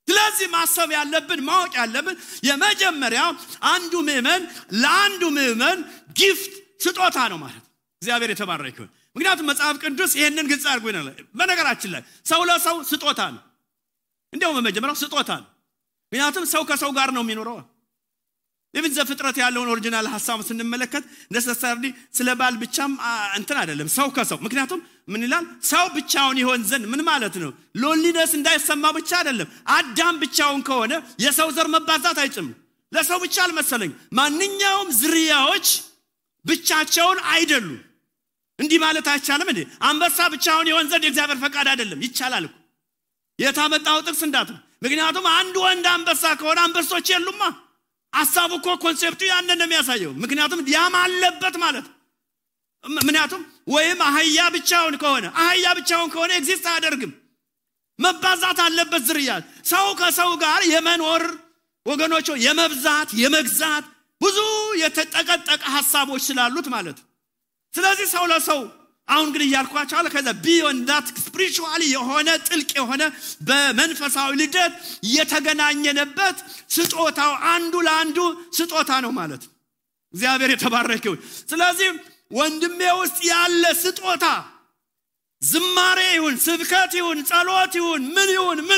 ስለዚህ ማሰብ ያለብን ማወቅ ያለብን የመጀመሪያው አንዱ ምእመን ለአንዱ ምእመን ጊፍት ስጦታ ነው ማለት። እግዚአብሔር የተባረከ ይሁን። ምክንያቱም መጽሐፍ ቅዱስ ይሄንን ግልጽ አድርጎ ይናል። በነገራችን ላይ ሰው ለሰው ስጦታ ነው። እንደውም በመጀመሪያው ስጦታ ነው። ምክንያቱም ሰው ከሰው ጋር ነው የሚኖረው። ለምን ዘፍጥረት ያለውን ኦሪጂናል ሐሳብ ስንመለከት necessarily ስለ ባል ብቻም እንትን አይደለም ሰው ከሰው። ምክንያቱም ምን ይላል? ሰው ብቻውን ይሆን ዘንድ ምን ማለት ነው? ሎንሊነስ እንዳይሰማ ብቻ አይደለም። አዳም ብቻውን ከሆነ የሰው ዘር መባዛት አይችልም። ለሰው ብቻ አልመሰለኝ። ማንኛውም ዝርያዎች ብቻቸውን አይደሉም። እንዲህ ማለት አይቻልም እንዴ? አንበሳ ብቻውን ይሆን ዘንድ የእግዚአብሔር ፈቃድ አይደለም። ይቻላል እኮ። የታመጣው ጥቅስ እንዳት። ምክንያቱም አንድ ወንድ አንበሳ ከሆነ አንበሶች የሉማ። ሐሳቡ እኮ ኮንሴፕቱ ያንን ነው የሚያሳየው። ምክንያቱም ያም አለበት ማለት ምክንያቱም ወይም አህያ ብቻውን ከሆነ ኤግዚስት አያደርግም። መባዛት አለበት ዝርያ። ሰው ከሰው ጋር የመኖር ወገኖች የመብዛት የመግዛት ብዙ የተጠቀጠቀ ሐሳቦች ስላሉት ማለት። ስለዚህ ሰው ለሰው አሁን ግን ያልኳቸው አለ ከዛ ቢዮንድ ዳት ስፒሪቹዋሊ የሆነ ጥልቅ የሆነ በመንፈሳዊ ልደት የተገናኘነበት ስጦታው አንዱ ለአንዱ ስጦታ ነው ማለት። እግዚአብሔር የተባረከ ይሁን። ስለዚህ ወንድሜ ውስጥ ያለ ስጦታ ዝማሬ ይሁን ስብከት ይሁን ጸሎት ይሁን ምን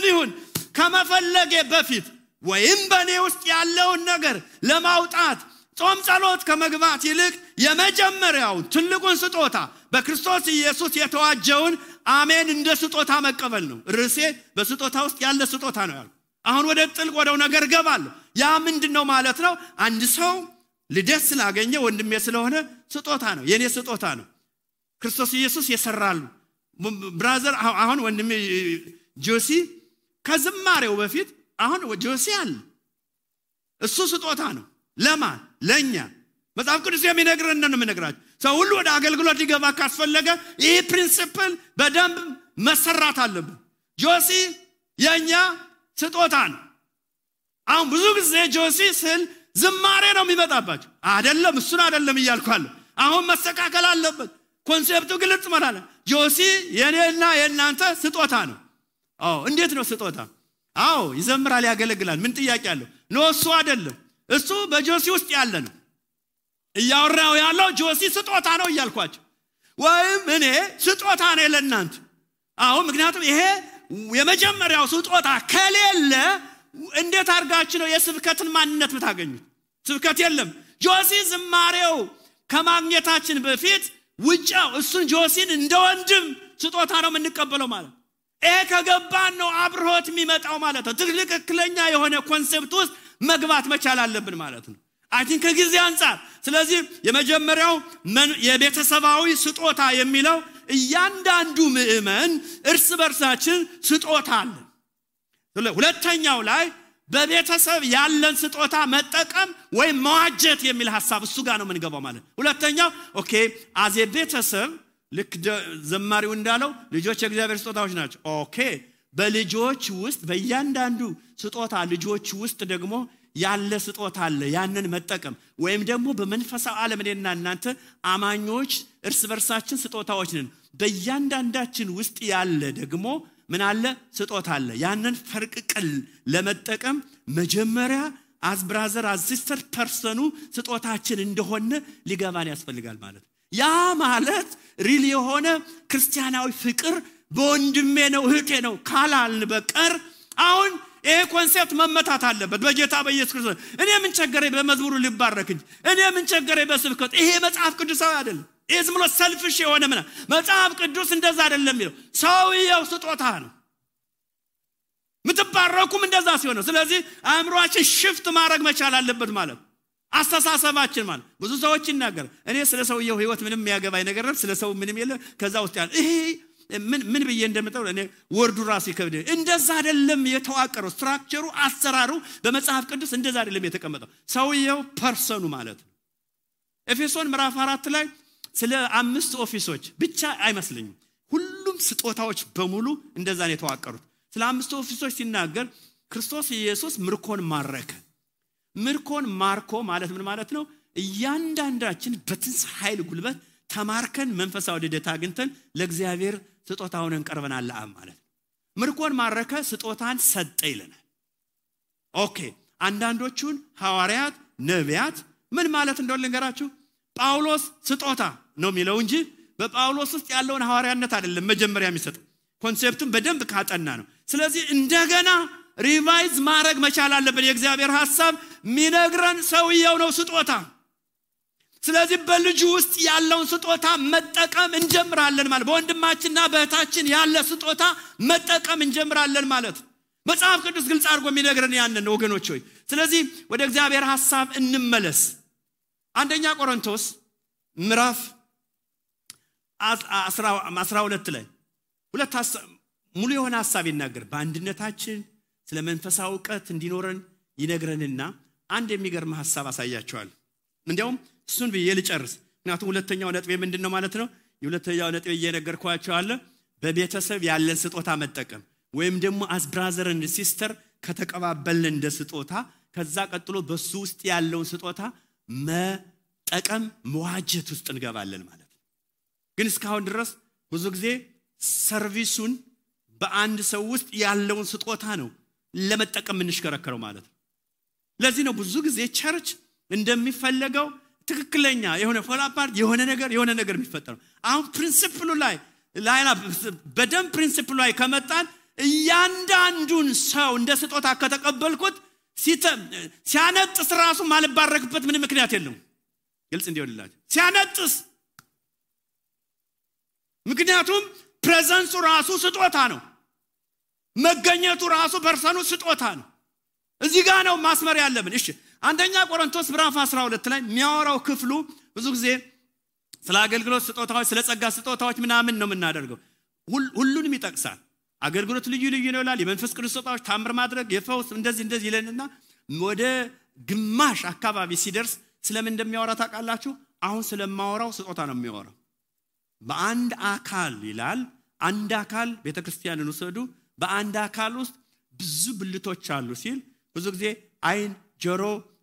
ይሁን ከመፈለጌ በፊት ወይም በኔ ውስጥ ያለውን ነገር ለማውጣት ጾም ጸሎት ከመግባት ይልቅ የመጀመሪያው ትልቁን ስጦታ በክርስቶስ ኢየሱስ የተዋጀውን አሜን እንደ ስጦታ መቀበል ነው። ርዕሴ በስጦታ ውስጥ ያለ ስጦታ ነው ያለው። አሁን ወደ ጥልቅ ወደው ነገር ገባለሁ። ያ ምንድነው ማለት ነው? አንድ ሰው ልደት ስላገኘ ወንድሜ ስለሆነ ስጦታ ነው የኔ ስጦታ ነው ክርስቶስ ኢየሱስ የሰራሉ ብራዘር አሁን ወንድሜ ጆሲ ከዝማሬው በፊት አሁን ጆሲ አለ እሱ ስጦታ ነው ለማን ለኛ መጽሐፍ ቅዱስ የሚነግረን ነው የምነግራችሁ ሰው ሁሉ ወደ አገልግሎት ሊገባ ካስፈለገ ይሄ ፕሪንሲፕል በደንብ መሰራት አለበት ጆሲ የኛ ስጦታ ነው አሁን ብዙ ጊዜ ጆሲ ስል ዝማሬ ነው የሚመጣባችሁ አይደለም እሱን አይደለም እያልኳለሁ አሁን መስተካከል አለበት ኮንሴፕቱ ግልጽ ማለት ጆሲ የኔና የናንተ ስጦታ ነው እንዴት ነው ስጦታ ይዘምራል ያገለግላል ምን ጥያቄ አለው ነው እሱ አይደለም እሱ በጆሲ ውስጥ ያለ ነው እያወራው ያለው ጆሲ ስጦታ ነው እያልኳችሁ ወይም እኔ ስጦታ ነኝ ለናንተ ምክንያቱም ይሄ የመጀመሪያው ስጦታ ከሌለ እንዴት አርጋችሁ ነው የስብከትን ማንነት የምታገኙት ስብከት የለም ጆሲ ዝማሬው ከማግኘታችን በፊት ውጫው እሱን ጆሲን እንደ ወንድም ስጦታ ነው የምንቀበለው ማለት ከገባን ነው አብሮት የሚመጣው ማለት ነው ትክክለኛ የሆነ ኮንሴፕት ውስጥ መግባት መቻል አለብን ማለት ነው አይ ቲንክ ከጊዜ አንፃር ስለዚህ የመጀመሪያው የቤተሰባዊ ስጦታ የሚለው እያንዳንዱ ምእመን እርስ በርሳችን ስጦታ አለ ሁለተኛው ላይ በቤተሰብ ያለን ስጦታ መጠቀም ወይ መዋጀት የሚል ሐሳብ እሱ ጋር ነው የምንገባው ማለት ሁለተኛው አዜ ቤተሰብ ልክ ዘማሪው እንዳለው ልጆች የእግዚአብሔር ስጦታዎች ናቸው በልጆች ውስጥ በእያንዳንዱ ስጦታ ልጆች ውስጥ ደግሞ ያለ ስጦታ አለ ያንን መጠቀም ወይም ደግሞ በመንፈሳዊ ዓለም እኔና እናንተ አማኞች እርስ በርሳችን ስጦታዎች ነን በእያንዳንዳችን ውስጥ ያለ ደግሞ ምን አለ ስጦታ አለ ያንን ፈርቅቀል ለመጠቀም መጀመሪያ as brother as sister ፐርሰኑ ስጦታችን እንደሆነ ሊገባን ያስፈልጋል ማለት ያ ማለት ሪሊ የሆነ ክርስቲያናዊ ፍቅር በወንድሜ ነው እህቴ ነው ካላልን በቀር አሁን ይሄ ኮንሴፕት መመታት አለበት በጌታ በኢየሱስ ክርስቶስ እኔ ምን ቸገረኝ በመዝሙሩ ሊባረክ እንጂ እኔ ምን ቸገረኝ በስብከት ይሄ መጽሐፍ ቅዱሳዊ አይደለም ዝም ብሎ ሰልፍሽ የሆነ መጽሐፍ ቅዱስ እንደዛ አይደለም የሚለው ሰውየው ስጦታ ነው ምትባረኩም እንደዛ ሲሆን ስለዚህ አእምሮአችን ሽፍት ማድረግ መቻል አለበት ማለት አስተሳሰባችን ማለት ብዙ ሰዎች ይናገር እኔ ስለ ሰውየው ህይወት ምንም የሚያገባኝ ነገር ነው ስለ ሰው ምንም የለ ከዛ ውስጥ ያለ ይሄ ምን ብዬ እንደምጠው እኔ ወርዱ ራሱ ይከብደ እንደዛ አይደለም የተዋቀረው ስትራክቸሩ አሰራሩ በመጽሐፍ ቅዱስ እንደዛ አይደለም የተቀመጠው ሰውየው ፐርሰኑ ማለት ነው ኤፌሶን ምዕራፍ 4 ላይ ስለ 5 ኦፊሶች ብቻ አይመስልኝም ሁሉም ስጦታዎች በሙሉ እንደዛ ነው የተዋቀሩት ስለ 5 ኦፊሶች ሲናገር ክርስቶስ ኢየሱስ ምርኮን ማረከ ምርኮን ማርኮ ማለት ምን ማለት ነው እያንዳንዳችን በትንሣኤ ኃይል ጉልበት ተማርከን መንፈሳዊ ልደት አግኝተን ለእግዚአብሔር ስጦታውን እንቀርበናል ማለት ምርኮን ማረከ ስጦታን ሰጠ ይለናል አንዳንዶቹን ሐዋርያት ነቢያት ምን ማለት እንደሆነ ልንገራችሁ ጳውሎስ ስጦታ ነው የሚለው እንጂ በጳውሎስ ውስጥ ያለውን ሐዋርያነት አይደለም መጀመሪያ የሚሰጠው ኮንሴፕቱን በደንብ ካጠና ነው ስለዚህ እንደገና ሪቫይዝ ማድረግ መቻል አለበት የእግዚአብሔር ሐሳብ ሚነግረን ሰውየው ነው ስጦታ ስለዚህ በልጁ ውስጥ ያለውን ስጦታ መጠቀም እንጀምራለን ማለት በወንድማችንና በእህታችን ያለ ስጦታ መጠቀም እንጀምራለን ማለት መጽሐፍ ቅዱስ ግልጽ አድርጎ የሚነግረን ያንን ወገኖች ሆይ ስለዚህ ወደ እግዚአብሔር ሐሳብ እንመለስ አንደኛ ቆሮንቶስ ምዕራፍ 12 ላይ ሁለት ሙሉ የሆነ ሐሳብ ይናገር በአንድነታችን ስለ መንፈሳዊ ዕውቀት እንዲኖረን ይነግረንና አንድ የሚገርም ሐሳብ አሳያቸዋል እንዴውም እሱን ብዬ ልጨርስ ምክንያቱም ሁለተኛው ነጥብ ምንድነው ማለት ነው የሁለተኛው ነጥብ እየነገርኳችሁ አለ በቤተሰብ ያለን ስጦታ መጠቀም ወይም ደግሞ as brother and sister ከተቀባበልን እንደ ስጦታ ከዛ ቀጥሎ በሱ ውስጥ ያለውን ስጦታ መጠቀም መዋጀት ውስጥ እንገባለን ማለት ነው ግን እስካሁን ድረስ ብዙ ጊዜ ሰርቪሱን በአንድ ሰው ውስጥ ያለውን ስጦታ ነው ለመጠቀም እንሽከረከረው ማለት ነው ለዚህ ነው ብዙ ጊዜ ቸርች እንደሚፈልገው ትክክለኛ የሆነ ፎላፓርት የሆነ ነገር የሚፈጠረው አሁን ፕሪንሲፕሉ ላይ በደም ፕሪንሲፕሉ ላይ ከመጣን እያንዳንዱን ሰው እንደ ስጦታ ከተቀበልኩት ሲያነጥስ ራሱ ማልባረክበት ምን ምክንያት የለውም ግልጽ እንዲሆንላችሁ ሲያነጥስ ምክንያቱም ፕሬዘንሱ ራሱ ስጦታ ነው መገኘቱ ራሱ ፐርሰኑ ስጦታ ነው እዚህ ጋር ነው ማስመር ያለብን እሺ አንደኛ ቆሮንቶስ ምዕራፍ 12 ላይ የሚያወራው ክፍሉ ብዙ ጊዜ ስለ አገልግሎት ስጦታዎች ስለ ጸጋ ስጦታዎች ምናምን ነው የምናደርገው ሁሉንም ይጠቅሳል አገልግሎት ልዩ ልዩ ነው ይላል የመንፈስ ቅዱስ ስጦታዎች ታምር ማድረግ የፈውስ እንደዚህ ይለንና ወደ ግማሽ አካባቢ ሲደርስ ስለምን እንደሚያወራ ታውቃላችሁ አሁን ስለማወራው ስጦታ ነው የሚያወራው በአንድ አካል ይላል አንድ አካል ቤተክርስቲያንን ወሰዱ በአንድ አካል ውስጥ ብዙ ብልቶች አሉ ሲል ብዙ ጊዜ አይን ጆሮ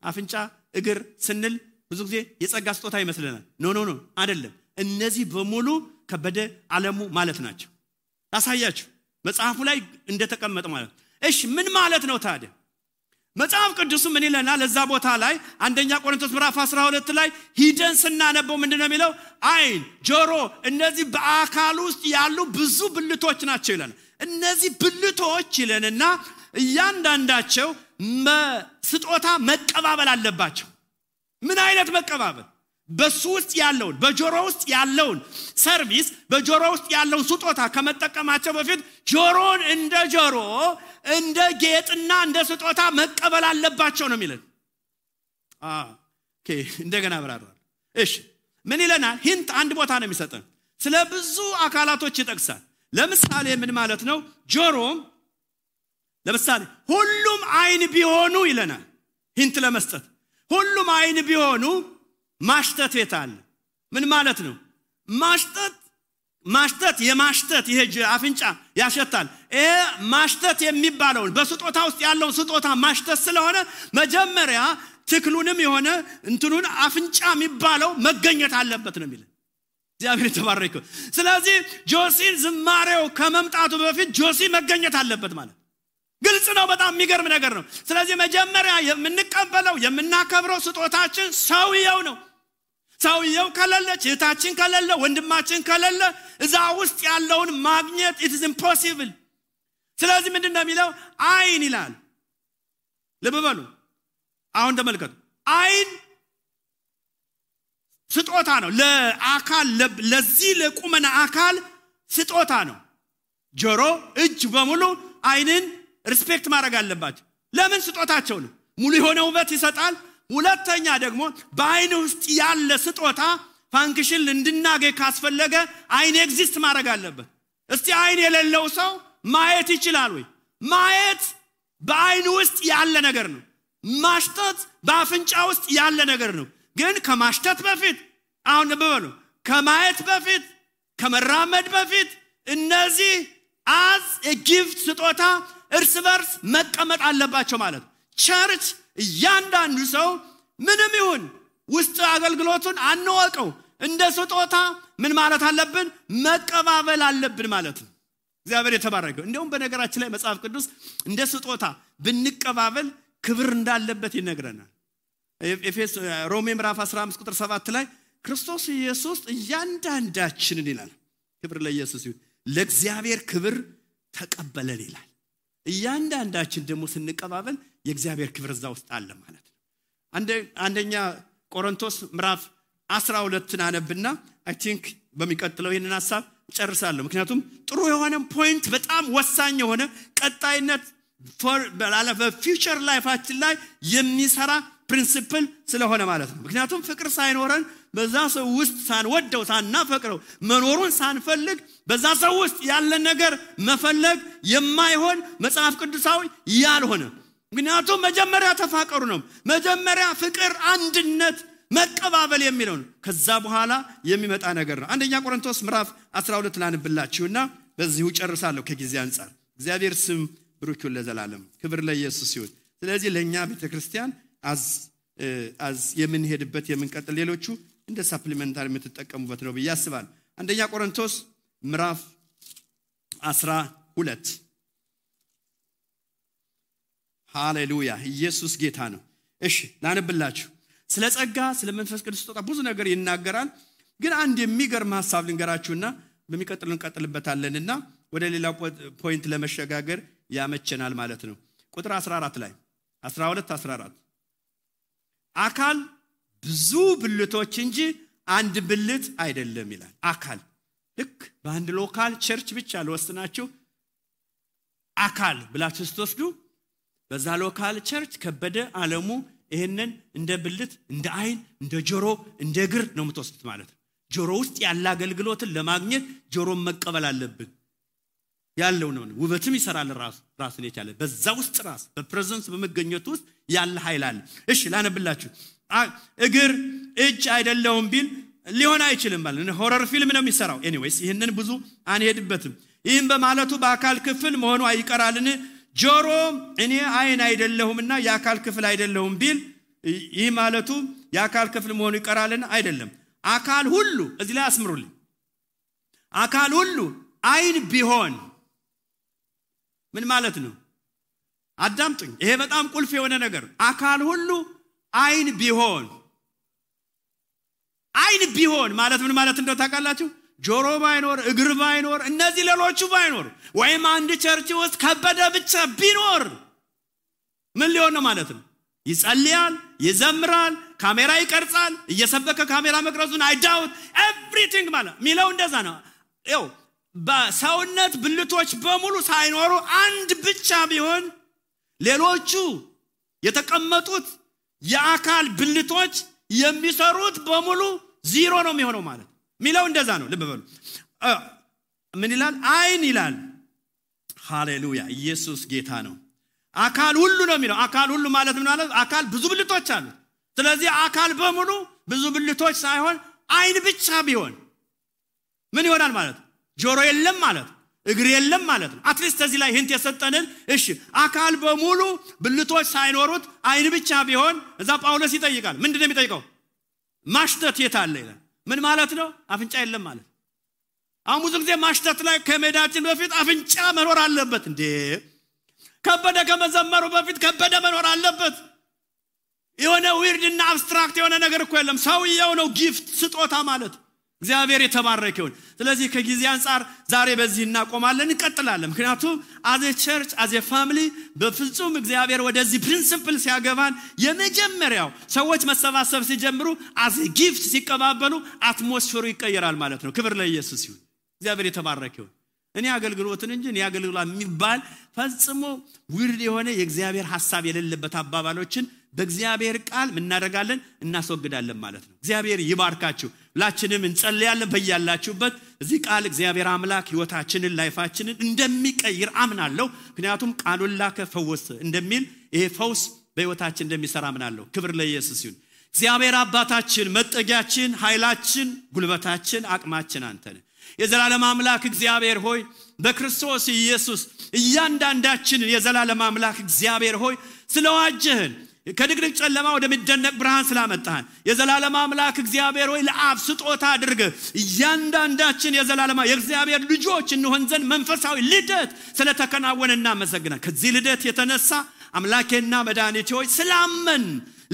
አፍንጫ እግር ስንል ብዙ ጊዜ የጸጋ ስጦታ ይመስለናል ኖ አይደለም እነዚህ በሙሉ ከበደ ዓለሙ ማለት ናቸው ታሳያችሁ መጽሐፉ ላይ እንደተቀመጠ ማለት እሺ ምን ማለት ነው ታዲያ መጽሐፍ ቅዱስ ምን ይለናል ለዛ ቦታ ላይ አንደኛ ቆሮንቶስ ምዕራፍ 12 ላይ ሂደን ስናነበው ምንድነው የሚለው አይን ጆሮ እነዚህ በአካል ውስጥ ያሉ ብዙ ብልቶች ናቸው ይለናል እነዚህ ብልቶች ይለንና እያንዳንዳቸው ስጦታ መቀባበል አለባቸው ምን አይነት መቀባበል በሱ ውስጥ ያለውን በጆሮ ውስጥ ያለውን ሰርቪስ በጆሮ ውስጥ ያለውን ስጦታ ከመጠቀማቸው በፊት ጆሮን እንደ ጆሮ እንደ ጌጥና እንደ ስጦታ መቀበል አለባቸው ነው የሚለን ኦኬ እንደገና አብራራለሁ እሺ ምን ይለናል ሂንት አንድ ቦታ ነው የሚሰጠን ስለ ብዙ አካላቶች ይጠቅሳል ለምሳሌ ምን ማለት ነው ጆሮ ለምሳሌ ሁሉም አይን ቢሆኑ ይለናል ሂንት ለመስጠት ሁሉም አይን ቢሆኑ ማሽተት የታለ ምን ማለት ነው ማሽተት የማሽተት ይሄ አፍንጫ ያሸታል ማሽተት የሚባለው በስጦታ ውስጥ ያለው ስጦታ ማሽተት ስለሆነ መጀመሪያ ትክሉንም የሆነ እንትኑን አፍንጫ የሚባለው መገኘት አለበት ነው የሚለው እግዚአብሔር ተባረከ ስለዚህ ጆሲን ዝማሬው ከመምጣቱ በፊት ጆሲ መገኘት አለበት ማለት ግልጽ ነው በጣም የሚገርም ነገር ነው ስለዚህ መጀመሪያ የምንቀበለው የምናከብረው ስጦታችን ሰውየው ነው ሰውየው ከሌለ እህታችን ከሌለ ወንድማችን ከሌለ እዛ ውስጥ ያለውን ማግኘት it is impossible ስለዚህ ምንድነው የሚለው አይን ይላል ልብ በሉ አሁን ተመልከቱ አይን ስጦታ ነው ለአካል ለዚህ ለቁመና አካል ስጦታ ነው ጆሮ እጅ በሙሉ አይንን ሪስፔክት ማድረግ አለባቸው ለምን ስጦታቸው ነው ሙሉ የሆነ ውበት ይሰጣል ሁለተኛ ደግሞ በአይን ውስጥ ያለ ስጦታ ፋንክሽን እንድናገኝ ካስፈለገ አይን ኤግዚስት ማድረግ አለበት እስቲ አይን የሌለው ሰው ማየት ይችላል ወይ ማየት በአይን ውስጥ ያለ ነገር ነው ማሽተት በአፍንጫ ውስጥ ያለ ነገር ነው ግን ከማሽተት በፊት አሁን በበሉ ከማየት በፊት ከመራመድ በፊት እነዚህ as a gift ስጦታ እርስ በርስ መቀመጥ አለባቸው ማለት ቸርች እያንዳንዱ ሰው ምንም ይሁን ውስጥ አገልግሎቱን አንወቀው እንደ ስጦታ ምን ማለት አለብን መቀባበል አለብን ማለት ነው እግዚአብሔር የተባረከ እንደውም በነገራችን ላይ መጽሐፍ ቅዱስ እንደ ስጦታ ብንቀባበል ክብር እንዳለበት ይነግረናል ሮሜ ምዕራፍ 15 ቁጥር 7 ላይ ክርስቶስ ኢየሱስ እያንዳንዳችንን ይላል ክብር ለኢየሱስ ይሁን ለእግዚአብሔር ክብር ተቀበለን ይላል እያንዳንዳችን ደግሞ ስንቀባበል የእግዚአብሔር ክብር እዛ ውስጥ አለ ማለት ነው አንደኛ ቆሮንቶስ ምዕራፍ 12 አነብና አይ ቲንክ በሚቀጥለው ይሄንን ሐሳብ ጨርሳለሁ ምክንያቱም ጥሩ የሆነ ፖይንት በጣም ወሳኝ የሆነ ቀጣይነት በፊውቸር ላይፋችን ላይ የሚሰራ ፕሪንሲፕል ስለሆነ ማለት ነው ምክንያቱም ፍቅር ሳይኖረን በዛ ሰው ውስጥ ሳንወደው ሳናፈቅረው መኖሩን ሳንፈልግ በዛ ሰው ውስጥ ያለ ነገር መፈለግ የማይሆን መጽሐፍ ቅዱሳዊ ያልሆነ ምክንያቱም መጀመሪያ ተፋቀሩ ነው መጀመሪያ ፍቅር አንድነት መቀባበል የሚለው ነው ከዛ በኋላ የሚመጣ ነገር ነው አንደኛ ቆሮንቶስ ምዕራፍ 12 ላንብላችሁና በዚሁ ጨርሳለሁ ከጊዜ አንፃር እግዚአብሔር ስም ብሩክ ይሁን ለዘላለም ክብር ለኢየሱስ ይሁን ስለዚህ ለኛ ቤተክርስቲያን አዝ የምንሄድበት የምንቀጥል ሌሎቹ እንደ ሰፕሊመንታሪ የምትጠቀሙበት ነው በያስባል አንደኛ ቆሮንቶስ ምዕራፍ 12 ሃሌሉያ ኢየሱስ ጌታ ነው እሺ ላንብላችሁ ስለ ጸጋ ስለ መንፈስ ቅዱስ ስጦታ ብዙ ነገር ይናገራል ግን አንድ የሚገርም ሐሳብ ልንገራችሁና በሚቀጥለው እንቀጥልበታለንና ወደ ሌላ ፖይንት ለመሸጋገር ያመቸናል ማለት ነው ቁጥር 14 ላይ 14 አካል ብዙ ብልቶች እንጂ አንድ ብልት አይደለም ይላል አካል ልክ በአንድ ሎካል ቸርች ብቻ ለወስናችሁ አካል ብላችሁ ስትወስዱ በዛ ሎካል ቸርች ከበደ ዓለሙ ይሄንን እንደ ብልት እንደ አይን እንደ ጆሮ እንደ እግር ነው የምትወስዱት ማለት ነው ጆሮ ውስጥ ያለ አገልግሎትን ለማግኘት ጆሮን መቀበል አለብን ያለው ነው ውበትም ይሰራል ራስን የቻለ በዛ ውስጥ ራስ በፕሬዘንስ በመገኘቱ ውስጥ ያለ ኃይል አለ እሺ ላነብላችሁ እግር እጅ አይደለም ቢል ሊሆን አይችልም ማለት ነው ሆረር ፊልም ነው የሚሰራው ኤኒዌይስ ይሄንን ብዙ አንሄድበትም ይሄን በማለቱ በአካል ክፍል መሆኑ አይቀራልን ጆሮ እኔ አይን አይደለሁምና የአካል ክፍል አይደለሁም ቢል ይሄ ማለቱ የአካል ክፍል መሆኑ ይቀራልን አይደለም አካል ሁሉ እዚህ ላይ አስምሩልኝ አካል ሁሉ አይን ቢሆን ምን ማለት ነው አዳምጡኝ ይሄ በጣም ቁልፍ የሆነ ነገር አካል ሁሉ አይን ቢሆን ማለት ምን ማለት እንደው ታውቃላችሁ ጆሮ ባይኖር እግር ባይኖር እነዚህ ሌሎቹ ባይኖር ወይም አንድ ቸርች ውስጥ ከበደ ብቻ ቢኖር ምን ሊሆን ነው ማለት ነው ይጸልያል ይዘምራል ካሜራ ይቀርጻል እየሰበከ ካሜራ መቅረጹን I doubt everything ማለት ሚለው እንደዛ ነው ይው በሰውነት ብልቶች በሙሉ ሳይኖሩ አንድ ብቻ ቢሆን ሌሎቹ የተቀመጡት የአካል ብልቶች የሚሰሩት በሙሉ ዜሮ ነው የሚሆነው ማለት ሚለው እንደዛ ነው ልብ በሉ ምን ይላል አይን ይላል ሃሌሉያ ኢየሱስ ጌታ ነው አካል ሁሉ ነው የሚለው አካል ሁሉ ማለት ምን ማለት አካል ብዙ ብልቶች አሉ ስለዚህ አካል በሙሉ ብዙ ብልቶች ሳይሆን አይን ብቻ ቢሆን ምን ይሆናል ማለት ጆሮ የለም ማለት እግር የለም ማለት ነው አትሊስት እዚህ ላይ ህንት የሰጠንን እሺ አካል በሙሉ ብልቶች ሳይኖሩት አይን ብቻ ቢሆን እዛ ጳውሎስ ይጠይቃል ምንድነው የሚጠይቀው ማሽተት የታለ ይላል ምን ማለት ነው አፍንጫ የለም ማለት አሁን ብዙ ጊዜ ማሽተት ላይ ከመዳችን በፊት አፍንጫ መኖር አለበት እንዴ ከበደ ከመዘመሩ በፊት ከበደ መኖር አለበት የሆነ ዊርድና አብስትራክት የሆነ ነገር እኮ የለም ሰውየው ነው ጊፍት ስጦታ ማለት እግዚአብሔር የተባረከ ይሁን ስለዚህ ከጊዜ አንፃር ዛሬ በዚህ እናቆማለን እንቀጥላለን ምክንያቱም as a church as a family በፍጹም እግዚአብሔር ወደዚህ ፕሪንሲፕል ሲያገባን የመጀመሪያው ሰዎች መሰባሰብ ሲጀምሩ as a gift ሲቀባበሉ አትሞስፌሩ ይቀየራል ማለት ነው ክብር ለኢየሱስ ይሁን እግዚአብሔር የተባረከ ይሁን እኔ አገልግሎትን እንጂ እኔ አገልግሎት የሚባል ፈጽሞ ዊርድ የሆነ የእግዚአብሔር ሐሳብ የሌለበት አባባሎችን በእግዚአብሔር ቃል እናደርጋለን እናስወግዳለን ማለት ነው እግዚአብሔር ይባርካችሁ ሁላችንም እንጸልያለን በእያላችሁበት እዚህ ቃል እግዚአብሔር አምላክ ህይወታችንን ላይፋችንን እንደሚቀይር አምናለሁ ምክንያቱም ቃሉን ላከ ፈወሰ እንደሚል ይሄ ፈውስ በህይወታችን እንደሚሰራ አምናለሁ ክብር ለኢየሱስ ይሁን እግዚአብሔር አባታችን መጠጊያችን ኃይላችን ጉልበታችን አቅማችን አንተ ነህ የዘላለም አምላክ እግዚአብሔር ሆይ በክርስቶስ ኢየሱስ እያንዳንዳችንን የዘላለም አምላክ እግዚአብሔር ሆይ ስለዋጀህን ከድቅድቅ ጨለማ ወደሚደነቅ ብርሃን ስላመጣህን የዘላለም አምላክ እግዚአብሔር ሆይ ለአብ ስጦታ አድርገህ እያንዳንዳችን የዘላለም የእግዚአብሔር ልጆች እንሆን ዘንድ መንፈሳዊ ልደት ስለተከናወነ እናመሰግናለን ከዚህ ልደት የተነሳ አምላኬና መድኃኒቴ ሆይ ስላመን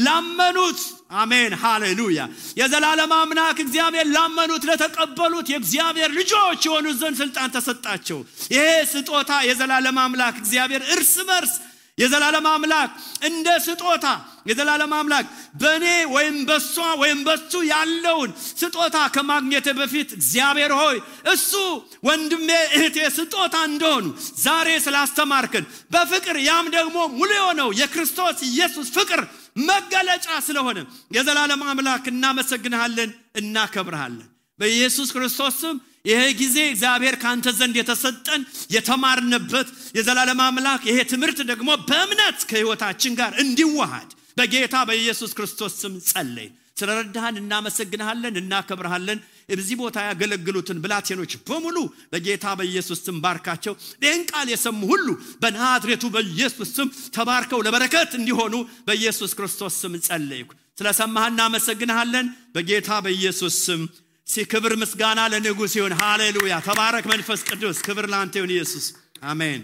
ላመኑት አሜን ሃሌሉያ የዘላለም አምላክ እግዚአብሔር ላመኑት ለተቀበሉት የእግዚአብሔር ልጆች የሆኑ ዘንድ ስልጣን ተሰጣቸው ይሄ ስጦታ የዘላለም አምላክ እግዚአብሔር እርስ በርስ የዘላለም አምላክ እንደ ስጦታ የዘላለም አምላክ በኔ ወይም በሷ ወይም በሱ ያለውን ስጦታ ከማግኘት በፊት እግዚአብሔር ሆይ እሱ ወንድሜ እህቴ ስጦታ እንደሆኑ ዛሬ ስላስተማርከን በፍቅር ያም ደግሞ ሙሉ የሆነው የክርስቶስ ኢየሱስ ፍቅር መገለጫ ስለሆነ የዘላለም አምላክ እናመሰግንሃለን እናከብርሃለን በኢየሱስ ክርስቶስ ስም ይሄ ጊዜ እግዚአብሔር ካንተ ዘንድ የተሰጠን የተማርነበት የዘላለም አምላክ ይሄ ትምህርት ደግሞ በእምነት ከህይወታችን ጋር እንዲዋሃድ በጌታ በኢየሱስ ክርስቶስ ስም ጸልይ ስለረዳህን እናመሰግንሃለን እናከብርሃለን እዚህ ቦታ ያገለግሉትን ብላቴኖች በሙሉ በጌታ በኢየሱስ ስም ባርካቸው ይህን ቃል የሰሙ ሁሉ በናዝሬቱ በኢየሱስ ስም ተባርከው ለበረከት እንዲሆኑ በኢየሱስ ክርስቶስ ስም ጸልይኩ ስለሰማህን እናመሰግንሃለን በጌታ በኢየሱስ ስም ሲክብር ምስጋና ለንጉስ ይሁን ሃሌሉያ ተባረክ መንፈስ ቅዱስ ክብር ላንተ ይሁን ኢየሱስ አሜን